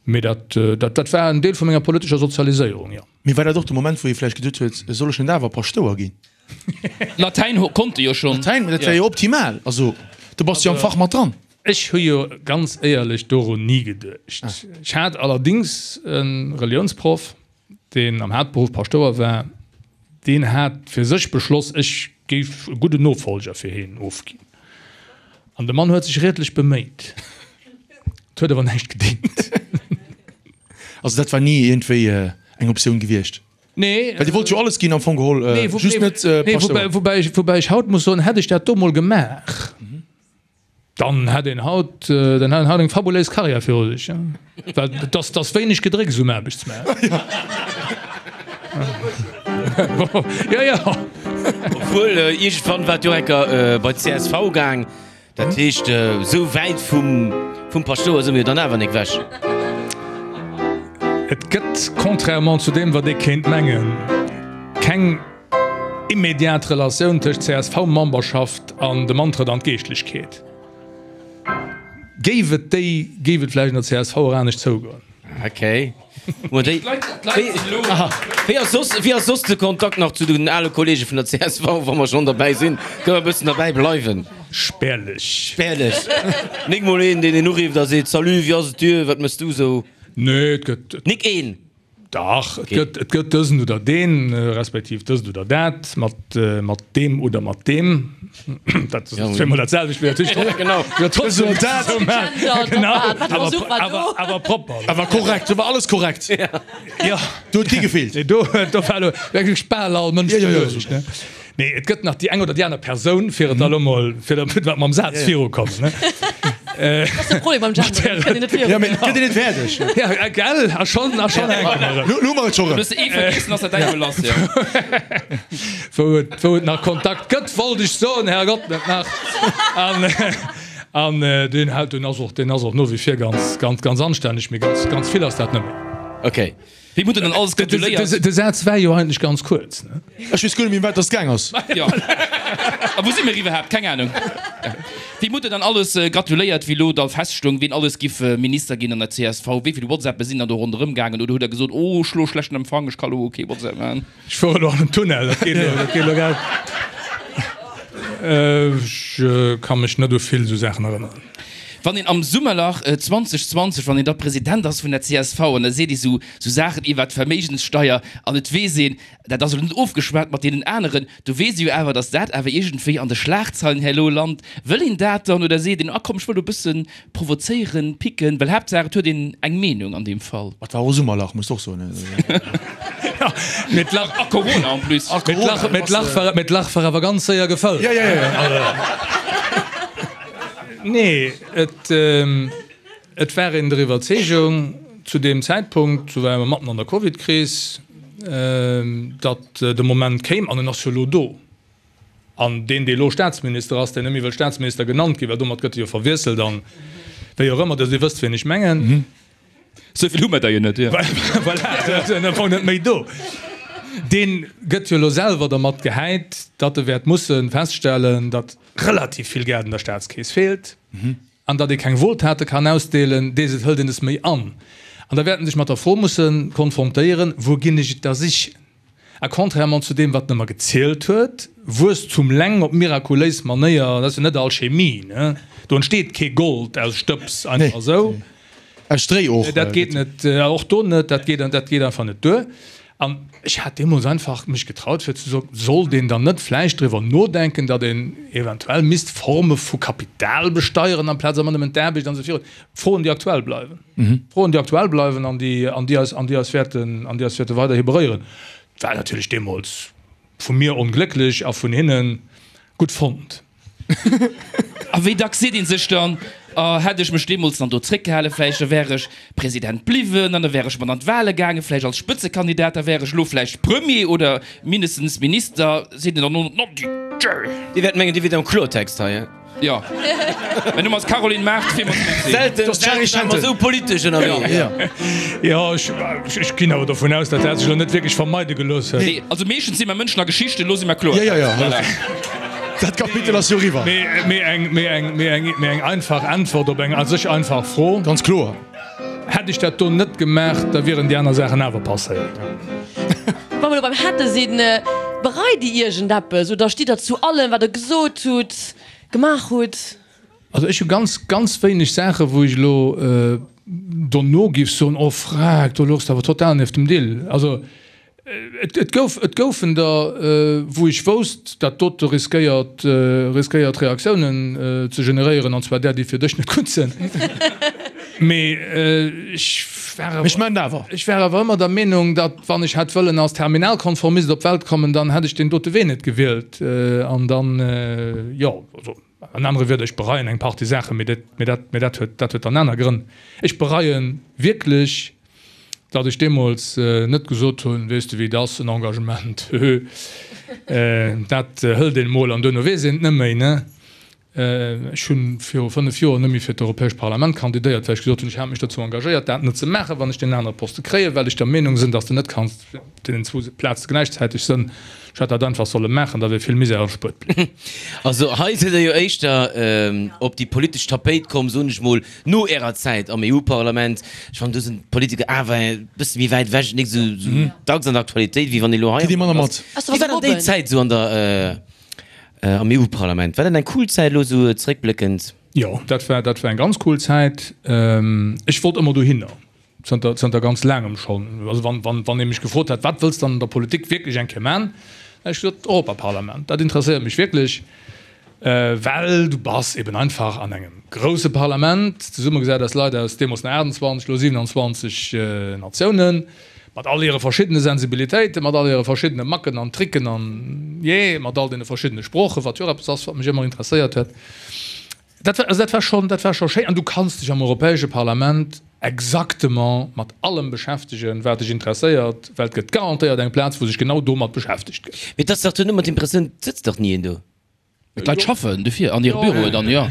Mee dat, dat, dat war en Deel vu menger politescher Sozialiséierung, jo. Mee war dat och de Moment, wou ee vläicht geduet huet, soll ech net awer Paschtouer ginn? Latäin konnt e jo schonn. Latäin, dat wär jo optimal. Also, do bass de jo am Fach mat dran. Ech hu jo ganz éierlech dorun ni geduecht. Ech hat allerdings e Reliounsproff, deen am Haaptberuff Paschtouer war, deen hat fir sech beschloss, ech géif e gudden Nofolger fir hien ofginn. An de Mann huet sech riedlech beméit. Et huet awer näischt gedéngt. Also dat war ni iergendwéi eng Optioun gewiescht? Nee. Well Dir wollt jo alles ginn am Fong geholl, just net Paschtouer. Nee, woubäi ech, woubäi ech haut muss soen, hätt ech dat do mol gemaach, dann hätt een haut, dann hätt een haut eng fabuléis Karriär viru sech. Well et ass, et ass wéineg Gedrécks um Aarbechtsmaart. Jo, jo. Obwuel, iergendwann war et jo enker bei d'CSV gaang. Dat heescht, esou wäit vum Paschtouer si mir jo dann awer nik wech. Et gëtt, contrairement zu deem wat ee kéint mengen, keng immediat Relatioun tëscht CSV-Memberschaft an dem Antrëtt an d'Geeschtlechkeet. Géif et déi, géif et vläicht an der csv och anescht zougoen. Okay. Wéi ass soss, wéi ass soss de Kontakt nach zu den ale Kollege vun der csv, wa mer schonn derbäi sinn? Kënne mer e bëssen derbäi bleiwen? Spärlech. Spärlech. Nik mol een, deen een urifft a seet, Salut, wéi ass et dir, wat méchs du esou? Nee, et gëtt. Nik een? Dach, et gëtt, et gëtt dësen oder deen, respektiv dëst oder dat, mat, mat deem oder mat deem. Dat ass zweemol dat selwecht, mee natierlech trotzdem. Genau. Jo, trotzdem Dësen oder dat. esou maachen. Gendert, Genau. wat war Awer, Versuch war awer, do? awer propper. Awer korrekt, do war alles korrekt. Ja. Do huet kee gefeelt. Nee, do, do war elo wierklech bal all Mënsch Ja, ja, ja. beluecht, ne? Nee, et gëtt nach déi eng oder déi aner Persoun, fir et da elo mol, fir damit mer mam Saz virukommen, ne? Dat ass de Problem beim Genderen, et kënnt een net virun. Ja, mee et gëtt een net fäerdeg. Ja, gell? A schonn, a schonn hänke mer erëm. Lo, lo hu mer et scho erëm. Du hues ee vergessen, ass dat däi Belass, jo. Wou et, wou et nach Kontakt gëtt, wollt ech soen, Herrgott, net nach. An, an deen hält, deen ass och, deen ass och no wie vir ganz, ganz, ganz anstänneg, mee ganz, ganz vill ass dat net méi. Okay. Wéi hutt Der dann alles gratuléiert? De Saz war jo eigentlech ganz kuerz, ne? Ech weess guer net méi, ëm wat dass gaang ass. Jo. A wou si mir iwwerhaapt? Keng Ahnung. Wéi hutt Der dann alles gratuléiert, wéi elo da feststoung, wien alles giff Minister ginn an der csv? Wéi vill WhatsAppe sinn dann do ronderëm gaangen? Oder hutt Der gesot, Oh, ech hu lo schlechten Empfang, ech ka lo kee WhatsApp maachen? Ech fuere elo an en Tunnel, dat geet elo, dat geet elo grad. Ech ka mech net u vill esou Saachen erënneren. Wann een am Summerlach 2020, wann een da President ass vun der csv an da seet ee sou Saachen iwwert d'Verméigenssteier an et weess een, dat ass elo net ofgeschwat mat deenen aneren, do weess ee jo awer, datt dat awer iergendwéi an de Schlagzeilen herno lant. Wëll een dat dann oder seet een, ah komm, ech wëll do e bësse provozéieren, picken, well Haaptsaach et huet een eng Meenung an deem Fall. Et war och Summerlach, muss de och soen. Mee d'Lach, A Corona en plus. mee d'Lach, mee d'Lach war, mee d'Lach war awer ganz séier gefëllt. Ja, ja, ja. Nee, et, et war een der Iwwerzeegung zu deem Zäitpunkt, do ware mer matten an der Covidkris, datt de Moment kéim, an en ass jo elo do. An deen, dee elo Staatsminister ass, deen net méi wëll Staatsminister genannt ginn, well domat gëtt e jo verwiesselt an wéi och ëmmer, Dir wësst, wien ech mengen. Sou vill hu mer der jo net, jo. Voilà, se sinn am Fong net méi do. Dee gëtt jo elo selwer dermat gehäit, datt e wäert musse feststellen, datt relativ vill Geld an der Staatskeess feelt an datt ee keng Wohltate kann ausdeelen, dees et hëlt een es méi an. An da wäert en sech mat der Fro musse konfrontéieren, Wou ginn ech et da sichen? A contrairement zu deem, wat en ëmmer gezielt huet, Wuesstum leng op mirakuléis Manéier, dat ass jo net Alchemie, ne? Do entsteet kee Gold aus Stëbs einfach esou. Aus Stréi och. Dat geet net, och do net, dat geet, dat geet einfach net duer. An ech hat deemools einfach mech getraut fir ze soen, sollt een dann net vläicht driwwer nodenken, datt een eventuell misst Forme vu Kapital besteieren amplaz ëmmer nëmmen d'Aarbecht an esou virun. Froen, déi aktuell bleiwen. Froen, déi aktuell bleiwen an déi, an déi eis, an déi eis wäerten, an déi eis wäerte weiderhi beréieren. War natierlech deemools vu mir onglécklech a vun hinne gutt fonnt. A wéi dacks seet ee sech dann, Oh, hätt ech mech deemools dann do zréckgehalen, vläicht da wär ech President bliwwen an da wär ech mat an d'Wahle gaangen, vläicht als Spëtzekandidat, da wär ech elo vläicht Premier oder mindestens Minister, seet een dann no, no, Dir wäert mengen, Dir wiert am Klortext hei. Jo, mäin Numm ass Caroline Mart, fir mat mir ze. Selten, selten war mer esou politesch ënnerwee. Jo, jo, ech ginn awer dovun aus, datt dat sech elo net wierklech vermeide gelooss huet. Nee, also meeschtens si mer Mënschen a Geschichten, elo si mer kloer. Jo, jo, jo, dat Kapitel ass jo eriwwer. Mee, mee eng, mee eng, mee eng, mee eng einfach Äntwert op eng a sech einfach Fro. Ganz kloer. Hätt ech dat do net gemaach, da wieren déi aner Saachen awer passéiert. Wa mer elo beim hätte sinn, bereit Dir iergendeppes oder stitt Der zu allem, wat Der gesot hutt, gemaach hutt? Also ech hu ganz, ganz wéineg Saachen, wou ech elo dono giff soen, oh frag, do louchs de awer total nieft dem Dill. Also et gouf, et goufen der, wou ech wousst, dat dote riskéiert, riskéiert Reaktiounen ze generéieren, an zwar där, déi fir dech net gutt sinn. Mee ech war awer, Ech maan et awer. ech war awer ëmmer der Meenung, datt wann ech hätt wëllen als Terminalkonformist op d'Welt kommen, dann hätt ech deen dote Wee net gewielt. An dann, jo, also. An anere Wierder, ech bereien eng Partie Saachen, mee dat, mee dat, mee dat huet, dat huet dann aner Grënn. Ech bereie wierklech, datt ech deemools net gesot hunn, weess de wéi et ass, en Engagement, höhö, dat hëlt een emol an duerno weess een et net méi, ne? Ech hu viru 5 Joer net méi fir d'Europäescht Parlament kandidéiert, well ech gesot hunn, ech hat mech dozou engagéiert, dat net ze maachen, wann ech deen anere Poste kréien, well ech der Meenung sinn, datt s de net kanns op deenen zwou Plaze gläichzäiteg sënn. Ech hätt dat einfach solle maachen, da wier vill Misär erspuert bliwwen. Also hei sidd der jo éischter op déi politesch Tapéit komm, soen ech mol, no ärer Zäit am EU-Parlament. Ech fannen, do sinn d'Politiker awer e bësse méi wäit ewech, nik esou dacks an der Aktualitéit, wéi wann ee lo hei am ass. Wéi war dann déi Zäit esou an der, am EU-Parlament? War dat eng cool Zäit elo esou zeréckbléckend? Jo, dat war, dat war eng ganz cool Zäit. Ech wollt ëmmer dohinner. Zënter, zënter ganz laangem schonn. Also wann, wann, wann ee mech gefrot hätt, wat wëlls de dann an der Politik wierklech eng Kéier man, da hätt ech gesot, Europaparlament, dat interesséiert mech wierklech, well du bass eben einfach an engem grousse Parlament, zesummegesat aus Leit aus deemools nach 28, elo 27 Natiounen, mat all hire verschiddene Sensibilitéiten, mat all hire verschiddene Macken an Tricken an, jee, mat all deene verschiddene Sproochen, wat jo och eppes ass, wat mech ëmmer interesséiert huet. Dat war, also dat war schonn, dat war scho schéin. An du kanns dech am Europäesche Parlament exactement mat allem beschäftegen, wat dech interesséiert, well et gëtt garantéiert eng Plaz, wou sech genau domat beschäftegt gëtt. Mee et ass dach duerno ëmmer d'Impressioun, et sëtzt dach ni een do. Mee d'Leit schaffen dofir an hire Büroen dann, jo.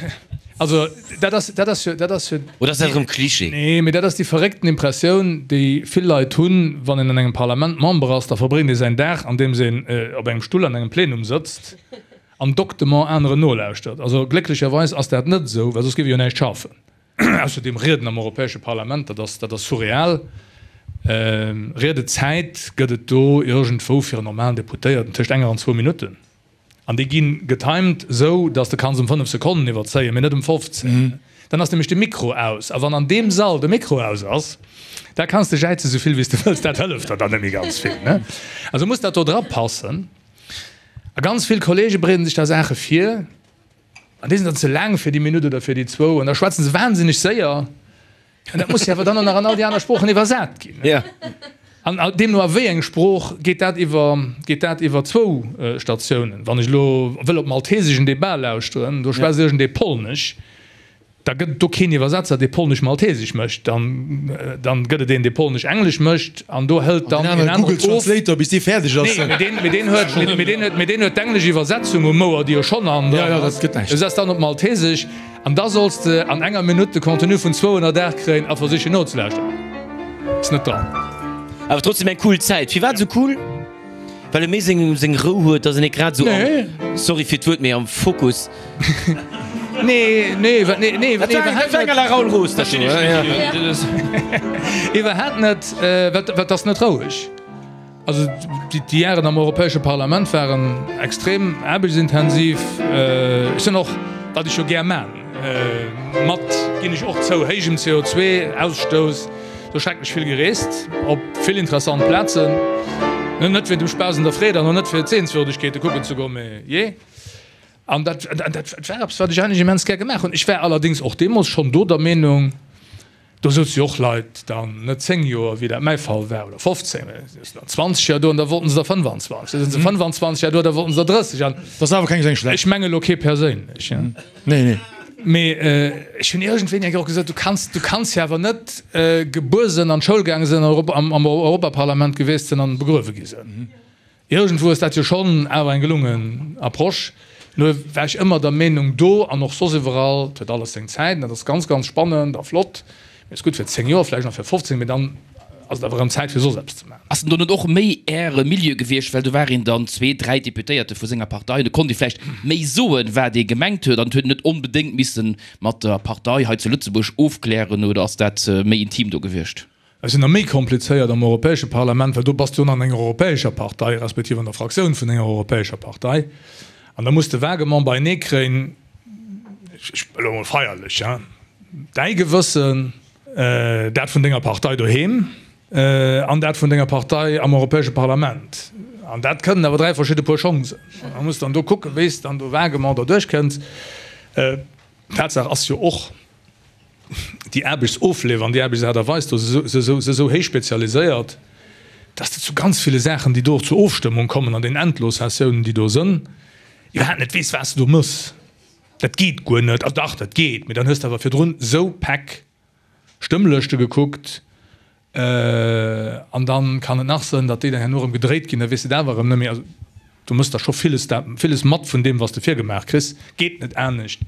Also dat ass, dat ass jo, dat ass jo. Oder ass dat erëm Cliché? Nee, mee dat ass déi verréckten Impressioun, déi vill Leit hunn, wann een an engem Parlament Member ass, da verbréngt ee säin Dag, andeems een op engem Stull an engem Plenum sëtzt. An doctement aneren nolauschtert. Also glécklecherweis ass dat net esou, well soss géif ee jo näischt schafen. Ausserdeem, Rieden am Europäesche Parlament, dat ass, dat ass surreal. Riedezäit gëtt et do iergendwou fir en normalen Deputéierten tëscht enger an zwou Minutten. An déi gi getimed esou, datt s de kanns ëm 5 Sekonnen iwwerzéien, mee net ëm 15. Dann ass nämlech de Mikro aus. A wann an deem Sall de Mikro aus ass, da kanns de jäize sou vill wéi s de wëlls, dat hëlleft der dann net méi ganz vill. Also muss dat do drapassen. A ganz vill Kollege bereeden sech da Saache vir, an déi sinn dann ze laang fir déi Minutt oder fir déi zwou, an da schwätze se wahnsinneg séier, an dat muss jo awer dann och nach an all déi aner Sproochen iwwersat ginn. An deemno a wéi eng Sprooch geet dat iwwer, geet dat iwwer zwou Statiounen. Wann ech elo wëll op Maltesesch en Debat lauschteren, do schwätzt iergendee Polnesch, Da gëtt et do keen Iwwersetzer, dee Polnesch-Maltesesch mécht. Dann, dann gëtt et een, dee Polnesch-Englesch mécht, an do hëlt dann een aneren of. Google Translator, bis dee fäerdeg ass. Nee, mee deen, mee deen huet, mee deen huet, mee deen huet d'englesch Iwwersetzung um Ouer, déi jo schonn an Ja, ja, dat gëtt näischt. Du setz dann op Maltesesch, an da solls de an enger Minutt de Contenu vun 208 kréien a versichen nozelauschteren. Ass net dran. Awer trotzdem eng cool Zäit. Firwat esou cool? Well e méi seng seng Rou huet, dass en net grad esou am, sorry fir d'Wuert, mee am Fokus. Nee, nee, wa, nee, nee, Dat war eng, dat war eng à la Raoul Roos, dat do, ja. Iwwerhaapt net, well well 't ass net roueg. Also déi déi Jaren am Europäesche Parlament waren extrem aarbechtsintensiv. Ech sinn och, wat ech jo gär man, mat, ginn ech och zou, héijem CO2-Ausstouss, Sou schrecklech vill gereest, op vill interessant Plazen. Net wéint dem Spaass an der Freed an och net fir d'Sehenswürdegkeete kucken ze goen, mee jee. An dat, dat war eppes, wat ech eigentlech immens gär gemaach hunn. Ech war allerdéngs och deemools schonn do der Meenung, do souze jo och Leit dann net 10 Joer, wéi dat mäi Fall war, oder 15, mee se souzen dann 20 Joer do an da wollten se der 25. Da sinn se 25 Joer do, da wollten se der 30. An Dat ass awer keng seng schlecht. ech menge lo kee perséinlech. Nee, nee. Mee ech hunn iergendwéini eng Kéier och gesot, du kanns, du kanns jo awer net gebuer sënn, an d'Schoul gaange sënn, am, am Europaparlament gewiesst sënn an begruewe gi sënn. Iergendwou ass dat jo schonn awer eng gelungen Approche. Nur war ech ëmmer der Meenung, do an och soss iwwerall, et huet alles seng Zäit an dat ass ganz, ganz spannend a flott, mee et ass gutt fir 10 Joer, vläicht nach fir 15, mee dann ass et awer erëm Zäit fir soss eppes ze maachen. Ass en do net och méi Äre Milieu gewiescht, well do war een dann zwee, dräi Deputéierte vu senger Partei, do konnt ee vläicht méi soen, wat ee gemengt huet an et huet een net onbedéngt misse mat der Partei hei zu Lëtzebuerg ofklären, oder ass dat méi intim do gewiescht? Et ass nach méi komplizéiert am Europäesche Parlament, well do bass du jo an enger europäescher Partei, respektiv an der Fraktioun vun enger europäescher Partei an da muss de vaguement beienee kréien. Ech, elo emol feierlech, hein, däi Gewëssen, dat vun denger Partei doheem an dat vun denger Partei am Europäesche Parlament. An dat kënnen awer 3 verschidde Puer Schong sinn. An da muss dann do kucken, wéi s de dann do vaguement derduerch kënns. Tatsaach ass jo och, déi Aarbechtsofleef an déi Aarbechtsaart a Weis do si esou héich spezialiséiert, dass de zu ganz ville Saachen, déi do och zur Ofstëmmung kommen an den Endlossessiounen, déi do sënn, iwwerhaapt net weess, wat s de do mëss. Dat geet guer net. Also dach, dat geet, mee dann hues de awer virdrun esou Päck Stëmmlëschte gekuckt an dann kann et nach sënn, datt déi dann herno erëm gedréit ginn, da weess de et awer erëm net méi. Also du mëss da scho villes, villes mat vun deem, wat s de virgemaach kriss. Geet net anescht.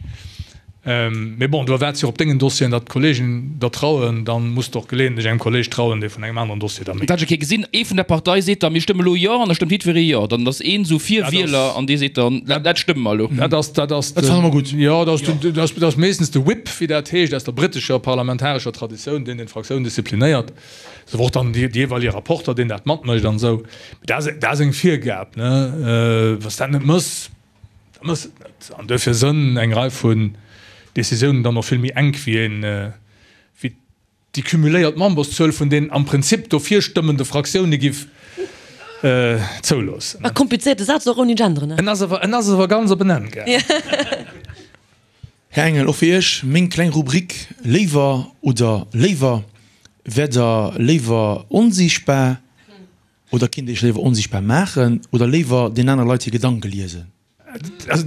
Mee bon, du erwaarts jo och op dengen Dossieren, datt d'Kollegen der trauen. Dann muss de och geleeëntlech engem Kolleg trauen, dee vun engem aneren Dossier da méi. Dat ech eng Kéier gesinn, ee vun der Partei seet da, mir stëmme lo Jo, an da stëmmt jiddweree Jo. Dann ass een esou fir Wieler an dee seet dann, dat stëmme mer elo. Dat ass, dat ass, Dat fanne mer gutt. Jo, dat ass, dat ass, dat ass meeschtens de Whip, wéi dat heescht, aus der brittescher parlamentarescher Traditioun, deen den d'Fraktioun disziplinéiert. Ass awer och dann dee jeeweilige Rapporter, deen dat matmécht an esou. Mee dat ass, dat ass eng Virgab, ne. Wa s dat net méchs, Da mëss et net. An duerfir sënn eng Rei vun Décisiounen dann och vill méi enk wéi een, wéi déi cumuléiert Memberszuel vun den am Prinzip dofir stëmmende Fraktioune giff zouloossen. E komplizéierte Saz, och ouni Genderen, ne? En ass awer, en ass awer ganz op en Enn gaangen. Här Engel, och fir Iech meng kleng Rubrik, Léiwer oder léiwer? Wäert Der léiwer onsiichtbar Oder kinnt Iech léiwer onsichtbar maachen oder léiwer den anere Leit hir Gedanke liesen? Also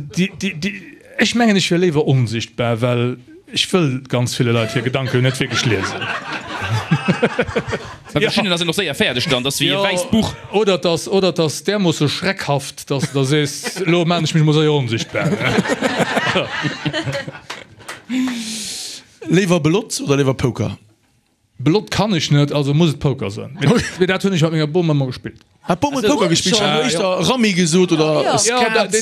ech mengen ech wier léiwer onsichtbar, well ech wëll ganz ville Leit hir Gedanken net wierklech liesen. Bei verschiddenen ass een och séier fäerdeg dann, dat ass wéi e wäisst Buch. Oder et ass, oder et ass därmoosse schreckhaft, dass de da sees, elo maan ech mech mol séier onsichtbar. Léiwer Belott oder léiwer Poker? Belott kann ech net, also muss et Poker sënn. Mee dat hunn ech mat menger Bom ëmmer gespillt. Hat d'Bom huet Poker gespillt? Ech hat elo éischter Rammi gesot oder Skat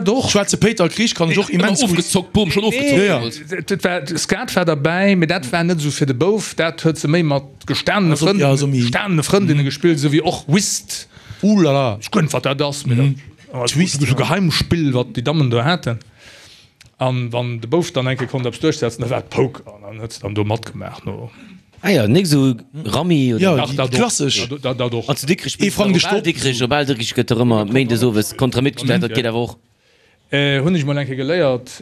oder Schwaarze Péiter Krich kann ech och immens gutt. Ofgezockt, d'Bom schonn ofgezockt deemools. Dat war, Skat war derbäi, mee dat war net esou fir de Bouf. Dat huet se méi mat gestanene Frënn, gestanene Frëndinne gespillt, esou wéi och Whist. Ouh-la-la. Ech guer net wat dat ass, mee dat ass esou Geheimspill wat déi Dammen do haten. An wann de Bouf dann eng Kéier konnt eppes duerchsetzen, da war et Poker an dann huet se dann do matgemaach no. Ah jo, nik esou Rammi oder? Jo, déi klassesch. Dat och. An zu Dikrech Ee Frang de spills de awer op Bal Stopp. Dikrech, op Bal Dikrech gëtt dach ëmmer méindes owes Kontra-Mitt gespillt, dat geet awer och. Hunn ech mol eng Kéier geléiert,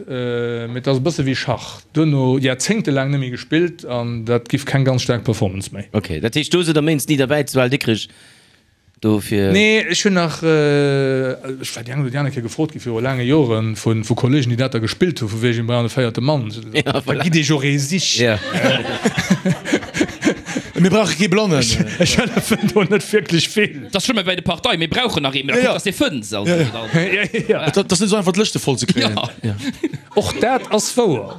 mee et ass e bësse wéi Schach, duerno jaerzéngtelaang net méi gespillt an dat giff keng ganz staark Performance méi. Ok, dat heescht do sidd der méindes ni derbäi zu Bal Dikrech? Dofir. Nee, ech hunn nach, ech war déi eng oder déi aner Kéier gefrot gi viru laange Joren vu vu Kollegen, déi dat da gespillt hu vu wegen brauchen e véierte Mann. Da gitt Iech och ee sichen. Mir brauche kee Blannen. Ech hëllefen do net wierklech vill. Dat ass schlëmm wéi bei de Parteien, mir brauchen nach ee, mee da kuckt, dass dee fënns. Also dann. Et ass net esou einfach d'Lëschte voll ze kréien. Och dat ass wouer.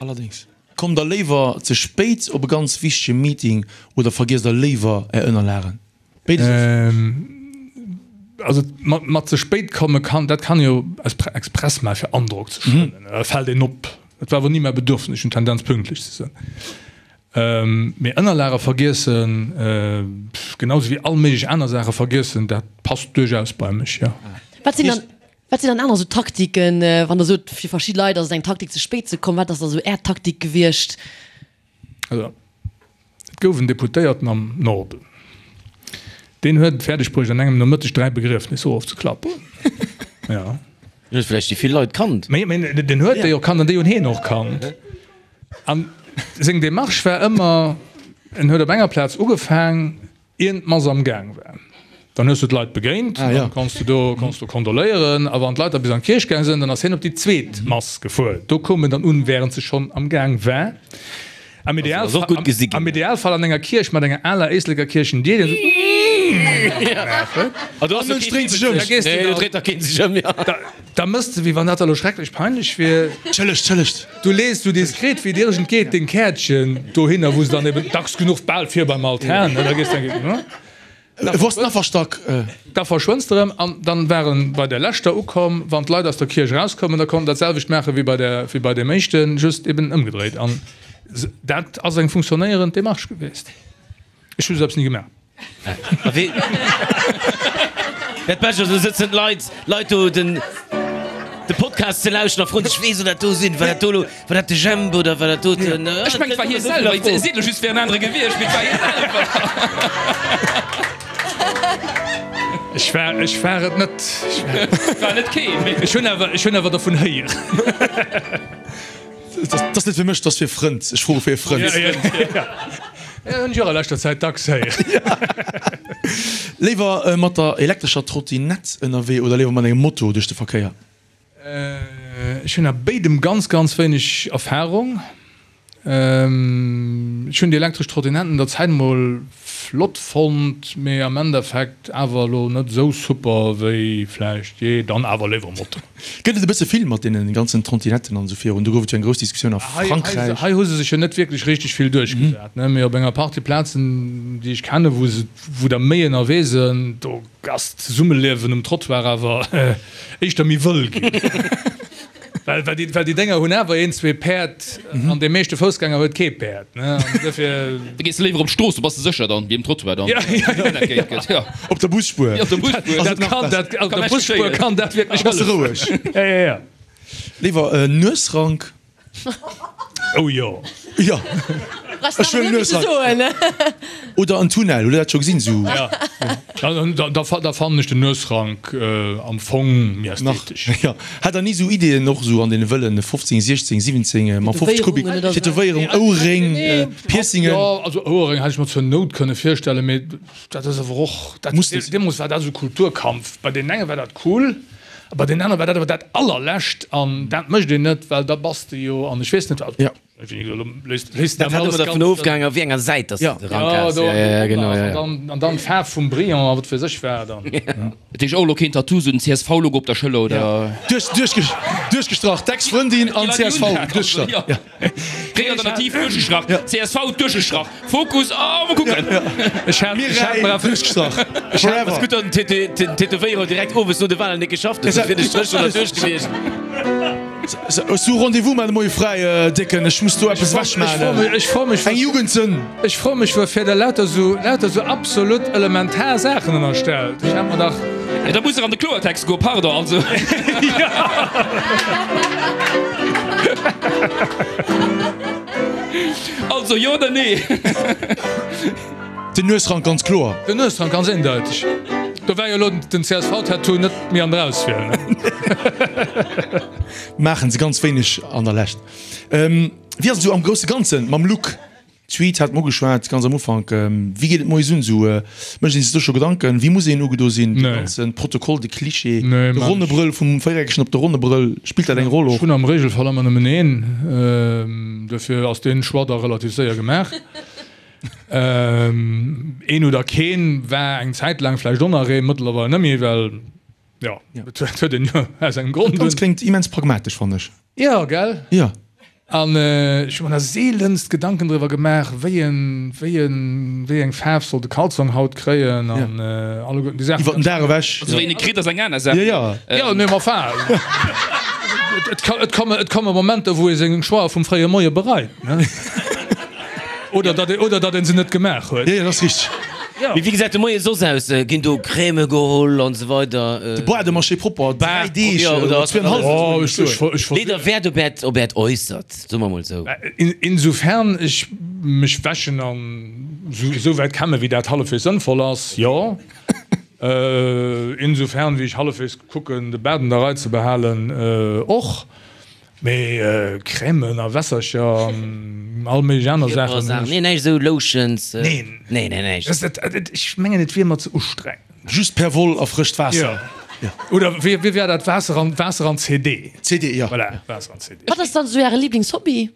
Allerdéngs. Kommt der léiwer ze spéit op e ganz wichtege Meeting oder vergiesst der léiwer är Ënnerlagen? Béides ass. Also mat ze spéit komme kann, dat kann jo express maachen fir Androck ze schënnen, da fält een op. Dat war awer ni mäi Bedürfnis, ech hunn d'Tendenz pünktlech ze sinn. Mee Ënnerlage vergiessen, genau sou wéi all méiglech aner Saache vergiessen, dat passt duerchaus bei mech, jo. Wat sinn dann Wat sinn dann aner sou Taktiken, wann der sot, fir verschidde Leit ass et eng Taktik ze spéit ze kommen, wat ass da sou Är Taktik gewiescht? Also, et gouf en Deputéierten am Norden, deen huet et fäerdeg bruecht an engem Nomëtteg 3 Begriefnisser ofzeklappen. Jo. Deen huet vläicht déi vill Leit kannt. Mee, mee deen huet déi och kannt an déi hunn hien och kannt. An seng Demarche war ëmmer, en huet op enger Plaz ugefaang, Ieren d'Mass am Gaang war. Dann hues du d'Leit begéint, dann konns du do konns du kondoléieren. A wann d'Leit da bis an d'Kierch gaang sinn, dann ass hien op déi zweet Mass gefuer. Do koum en dann un, wärend se schonn am Gaang war. Am Idealfall, am Idealfall an enger Kierch mat enger aler Éisleker Kierchendier, déi esou Da mëss de, wéi wann dat elo schrecklech peinlech wier. Tschëllegt, tschëllegt. Du lees sou diskret wéi et iergend geet deng Käertchen dohinner, wou se dann eben dacks genuch bal vir beim Altar, ne, da gees de eng, ne. Wou ass den Afferstack? Da verschwënns de erëm. An dann war en bei der leschter ukomm, wann d'Leit aus der Kierch erauskoumen, da konnt en dat selwecht maache wéi bei der, wéi bei deem éischten, just eben ëmgedréit. An dat ass eng funktionéierend Demarche gewiescht. Ech hu sou eppes ni gemaach. Dat Bescht ass, do sëtzen d'Leit, Leit do, den. de Podcast ze lauschten a froen sech, Wee soll dat do sinn? War dat do elo, war dat de Jemp oder war dat do den. Ech mengen, et war hie selwer. Et seet elo just, et wär en anere gewiescht, mee et war hie selwer. Ech war, ech war et net. Et war net keen, mee. Ech hunn awer, ech hunn awer dervun héieren. Dat ass net fir mech, dat ass fir e Frënd. Ech froe fir e Frënd. Ja, hunn ech och a leschter Zäit dacks héieren. Léiwer mat der elektrescher Trottinett ënnerwee oder léiwer mat engem Moto duerch de Verkéier? Ech hunn a béidem ganz, ganz wéineg Erfarung. Ech hunn déi elektresch Trottinetten der Zäit mol flott fonnt, mee am Endeffekt awer elo net esou super wéi vläicht jee. Dann awer léiwer Moto. Gëtt et e bësse vill mat deene ganzen Trottinetten an esou virun? Do gouf et jo eng grouss Diskussioun a Frankräich. Hei hu se sech jo net wierklech richteg vill duerchgesat, ne? Mee op enger Partie Plazen, déi ech kennen, wou se, wou der méi ënnerwee sinn, do ass d'Zesummeliewen um Trottoir awer éischter méi wëll ginn. Well, well déi, well déi Dénger hunn awer een, zwee Päerd an dee meeschte Foussgänger huet kee Päerd, ne? An dofir. Da gees de léiwer op d'Strooss, do bass de sécher dann, wéi um Trottoir dann. Ja, ja, ja. Gëtt, ja. Op der Busspuer. Ja, op der Busspuer. Dat kann, dat, op der Busspuer kann dat wierklech Da bass de roueg. Ja, ja, ja. Léiwer Nuesrank. Oh jo. Jo. Ech wëll Nuesrank. Oder en Tunnel, hutt der dat scho gesinn? Sou. Ja. Da, da, da fannen ech den Nuesrank am Fong méi ästhetesch. Ja. Hat der ni sou Ideeën och sou an deene wëllen 15, 16, 17 mam 50 Kubik, Tätowéierung, Ouerréng, Piercingen? Jo, also Ouerréng hätt ech mer zur Nout kënne virstellen, mee dat ass awer och, dat, deemools war dat esou Kulturkampf. Bei deenen enge war dat cool, a bei deenen anere war dat awer dat allerlescht an dat mécht een net, well da bass de jo an ech weess net wat. Ja. Dat hat ëmmer dervun ofgehaangen, op wéi enger Säit dass de de Rank has. Ja, ja, genau, ja, ja. An dann d'Faarf vum Brillant a wat weess ech wat. Dat heescht och elo keen Tattoo, sou den CSV-Logo op der Schëller oder? Duerchgestrach, d'Ex-Frëndin an csv duerchgestrach. Ja. Gréng Alternativ duerchgestrach, csv duerchgestrach, Fokus, oh mol kucken. Ech hat Mireille duerchgestrach, forever. Ass gutt, datt den Tätowéierer direkt owes no de Walen net geschafft huet, soss wier de Stréch schonn derduerch gewiescht. Hues du Rendez-vous mar de Moie fräi, Décken? Ech muss do eppes ewech maachen. Ech froe mech, Eng Jugendsënn. Ech froe mech, wuerfir der lauter sou, lauter sou absolut elementar Saachen ënnerstellt. Ech hat mer dach. Jo, da muss er an de Kloertext goen, pardon, also. Also, jo oder nee? Den Nuesrank ganz kloer. Den Nuesrank ganz eendeiteg. Do war jo elo den CSV-Tattoo net méi an der Auswiel, ne? Maachen se ganz wéineg an der Lescht. Wéi ass et esou am grousse Ganzen mam Look? D'Suite hat mer ugeschwat ganz am Ufank. Wéi geet et moies un esou? Mécht een sech do scho Gedanken, wéi muss een ugedo sinn? De ganze Protokoll, de Cliché, de ronne Brëll vum Véiereckegen op de ronne Brëll, spillt dat eng Roll och? Ech hunn am Regelfall ëmmer nëmmen een, duerfir ass dee Choix da relativ séier gemaach. Een oder keen war eng Zäit laang vläicht och nach een, mëttlerweil net méi, well jo, et huet een jo aus engem Grond un. Dat Ganzt kléngt immens pragmatesch, fannen ech. Jo, gell? Jo. An ech hu mer da seelenst Gedanken driwwer gemaach, wéi en, wéi en, wéi eng Faarf soll de Kalzong haut kréien an alleguerten déi Saachen. Iwwer den Dag ewech. Also wéi een e kritt, ass eng aner Saach. Jo, jo. Jo, nee, ma enfin, et ka, et komme, et komme Momenter, wou ee seng Choixë vum fréie Moie bereit, ne? Oder datt ee, oder datt ee se net gemaach huet. Jo, jo, dat ass richteg. Jo. Mee wéi gesäit de Moie soss aus? Ginn do Crèmë geholl an esou weider? De Bois de Marché propper, 3 Deeg oder oder zweenhalf. Oh, ech, ech, ech. Leet der Wäert op Äert, op Äert Äussert, soe mer mol esou. Insofern ech mech wäschen an esou wäit kämme wéi dat hallefwegs sënnvoll ass, jo. Insofern wéi ech hallefwegs kucken de Baart an der Rei ze behalen, och. Mee Crèmen a Wässercher an all méiglech aner Saachen hunn ech. Nee, näischt esou Lotions. Neen. Nee, nee, näischt. Ech mengen et wier mer ze ustrengend. Just per Woll a frëscht Waasser. Jo. Oder wéi wéi war dat? Waasser an Waasser an CD. CD, jo. Voilà, Waasser an CD. Wat ass dann esou Äre Liblingshobby?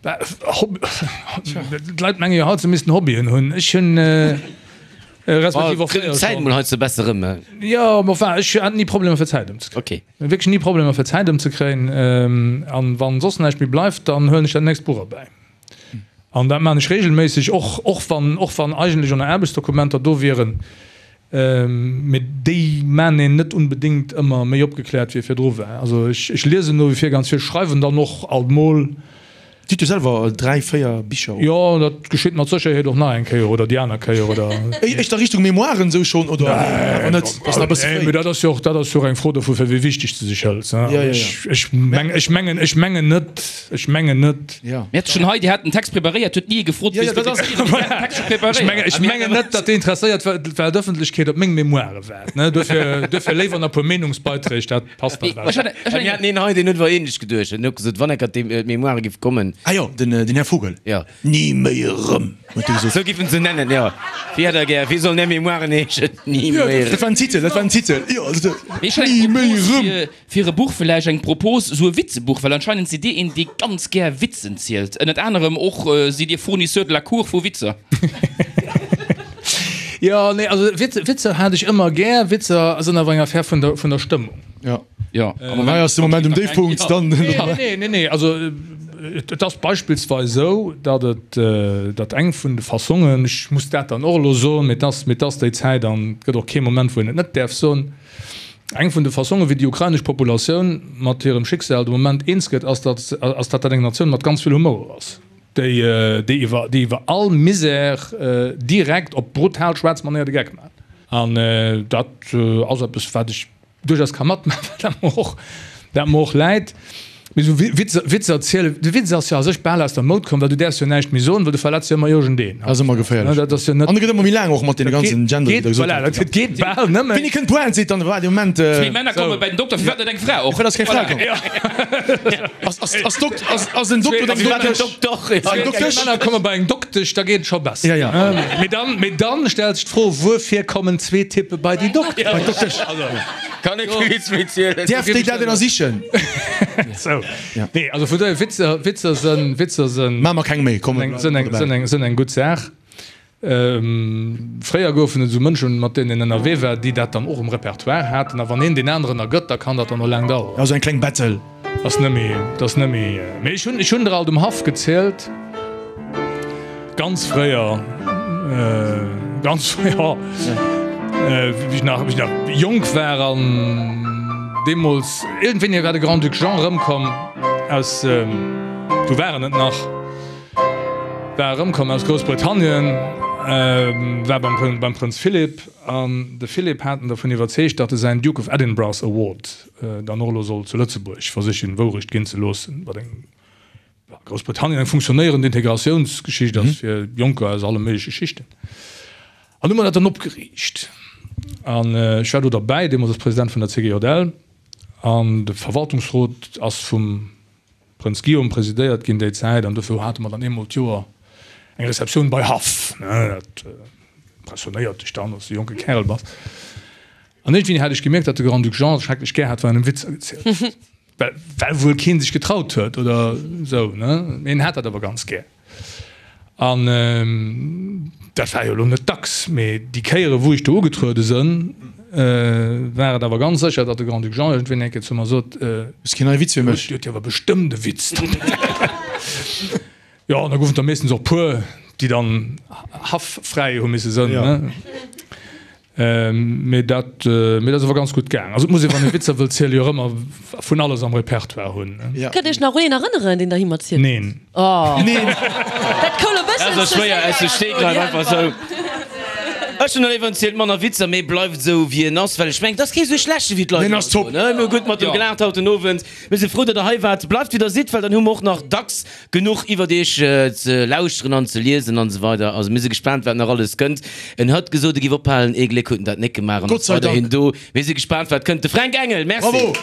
D'Leit menge jo haut, se missten Hobbyen hunn. Ech hunn respektiv och fréier Zäit mol hei ze besser rëm. Jo, ma enfin, ech hat ni Problemer fir Zäit ëmzekréien. Okay. Wierklech ni Problemer fir Zäit ëmzekréien. An wann soss näischt méi bleift, dann huelen ech dat nächst Buch erbäi. An dat maan ech regelméisseg, och och wann och wann eigentlech och nach Aarbechtsdokumenter do wieren. Mee déi maan een net unbedéngt ëmmer méi opgekläert wéi e virdru war. Also ech ech liesen no wie vir ganz vill, schreiwen dann och alt mol. Dir hutt jo selwer 3, 4 Bicher. Jo, dat geschitt mat Sécherheet och nach eng Kéier oder déi aner Kéier oder. Éischter Richtung Memoiren esou schonn oder awer net? Ass nach e bësse fréi. Nee, mee dat ass jo och, dat ass jo och eng Fro dovu fir wéi wichteg s de sech hëls. Ja, ja, ja. Ech meng, ech mengen, ech mengen net, ech mengen net. Ja. Mir hate schonn hei, Dir hat den Text preparéiert, huet ni ee gefrot, Ja, ja, dat ass. Ech mengen, ech mengen net, datt déi interesséiert Weltëffentlechkeet op meng Memoire waart, ne. Duerfir, duerfir léiwer nach e puer Meenungsbeiträg, dat passt dann besser. Mir haten een hei, deen huet awer ähnlech geduecht. En huet gesot, wann enker d'Mémoire giff kommen. Ah jo, den Här Vogel. Jo. Ni méi erëm, huet e gesot. Sou giff en se nennen, jo. Wéi hätt Der gär, wéi sollen Är Mémoiren heeschen? Ni méi erëm. Dat war en Titel, dat war en Titel, jo. Mee ech hätt Ni eng méi Propos erëm. fir, fir e Buch, vläicht eng Propos, sou e Witzebuch, well anscheinend sidd Dir een, dee ganz gär Witzen zielt. Ënnert anerem och sidd Dir Fournisseur de la Cour vu Witzer. Jo, nee, also Witzer hat ech ëmmer gär. Witzer sinn awer eng Affär vun der, vun der Stëmmung. Jo. Jo. Am Hei ass de Moment um Déifpunkt, dann. Nee, nee, nee, also et ass beispillsweis esou, datt et, datt eng vun de Fassongen, ech muss dat dann och elo soen, mee et ass, mee et ass déi Zäit an et gëtt och kee Moment, wou een et net däerf soen, eng vun de Fassongen, wéi déi ukrainesch Populatioun mat hirem Schicksal de Moment eens gëtt, ass, datt, ass datt dat eng Natioun mat ganz vill Humour ass, déi, déi iwwer, déi iwwer all Misär direkt op brutal schwaarz Manéier de Geck maacht. An dat ass eppes, wat ech duerchaus ka matmaachen, well dat mer och, dat mer och läit. Mee esou Witzer, Witzer zielen, de Witz ass jo a sech bal aus der Moud komm, well du däerfs jo näischt méi soen, well du verletz jo ëmmer iergendeen. Dat ass ëmmer geféierlech. Dat ass jo net. An e gëtt ëmmer méi laang och mat deene ganzen Gender, wéi Der gesot Voilà, dat geet bal nëmmen. Wéini kënnt d'Pointe, seet dann, waart ee Moment. Zwee Männer komme bei den Dokter, firwat net eng Fra och? Firwat ass keng Fra komm? Ass, ass, ass Dokt, ass, ass en Dokter oder eng Doktesch? Zwee Männer komme bei eng Doktesch, da geet et scho besser. Ja, ja. Mee dann, mee dann stellt sech d'Fro, Wuerfir kommen zwee Typpe bei déi Doktesch? Bei d'Doktesch. Kann ee kee Witz méi zielen. Däerf déi dat ënnersichen? Sou. Nee, also vun dohier, Witzer, Witzer sënn, Witzer sënn. Maache mer keng méi, komm. Sënn eng, sënn eng, sënn eng gutt Saach. Fréier goufen et esou Mënschen, mat deenen een ënnerwee war, déi dat dann och um Repertoire haten. A wann een deen aneren ergëtt, da kann dat dann och laang daueren. Also eng kleng Battle. Ass net méi, dat ass net méi. Mee ech hunn, ech hunn der alt um Haff gezielt, ganz fréier, ganz fréier, wéi ech nach, wéi ech nach jonk war an deemools, iergendwéini war de Grand-Duc Jean erëmkomm aus, du war en et nach, war erëmkomm aus Groussbritannien, war beim, beim Prënz Philip an de Philip hat en dervun iwwerzeegt, datt e säin Duke of Edinburgh's Award dann och elo soll zu Lëtzebuerg versichen Wourecht ginn ze loossen, wat eng a Groussbritannien eng funktionéierend Integratiounsgeschicht ass fir Jonker aus alle méigleche Schichten. An hu mer dat dann opgeriicht. An ech war do derbäi, deemools als President vun der CGJL, an de Verwaltungsrot ass vum Prënz Guillaume presidéiert ginn déi Zäit, an dofir hate mer dann eemol d'Joer eng Receptioun bei Haff. Dat impressionéiert dech dann, wann s de jonke Kärel bass. An iergendwéini hat ech gemierkt, datt de Grand-Duc Jean et schrecklech gär hat, wann en em Witzer gezielt huet. Well, well wuel kee sech getraut huet oder esou, ne? Mee en hat dat awer ganz gär. An dat war jo elo net dacks, mee déi Kéiere wou ech do ugetruede sënn, war et awer ganz sécher, datt de Grand-Duc Jean iergendwéini eng Kéier zu mer sot, Hues keen neie Witz fir mech? Dir huet jo awer bestëmmt e Witz. Jo, an da goufen et der meeschtens och puer, déi dann haff-fräi hu misse sënn, ne? Mee dat, mee dat ass awer ganz gutt gaang. Also et muss ee, wann ee Witzer wëllt zielen, jo och ëmmer vun alles am Repertoire hunn, ne? Ja. Kënnt Iech nach un een erënneren, deen der him erzielt huet? Neen. Oh. Neen. Dat koul e bëssen Dat ass ze schwéier séier. aus dem Stegreif, einfach sou. Ech hunn elo zielt manner Witzer, mee bleift esou wéi en ass, well ech mengen, et ass kee sou schlechte wéi d'Leit Deen ass ëmmer top. soen, ne? Mir hu gutt mat em gelaacht haut den Owend. Mir si frou, datt der hei waart. Bleift wéi der sidd, well dann hu mer och nach dacks Genuch iwwert iech ze lauschteren an ze liesen an esou weider. Also mir si gespaant wat nach alles kënnt. En hat gesot e giff ophalen, ee Gléck huet en dat nek gemaach an Gott ass sei weiderhin Dank. do. Mir si gespaant wat kënnt. De Fränk Engel, merci. Bravo!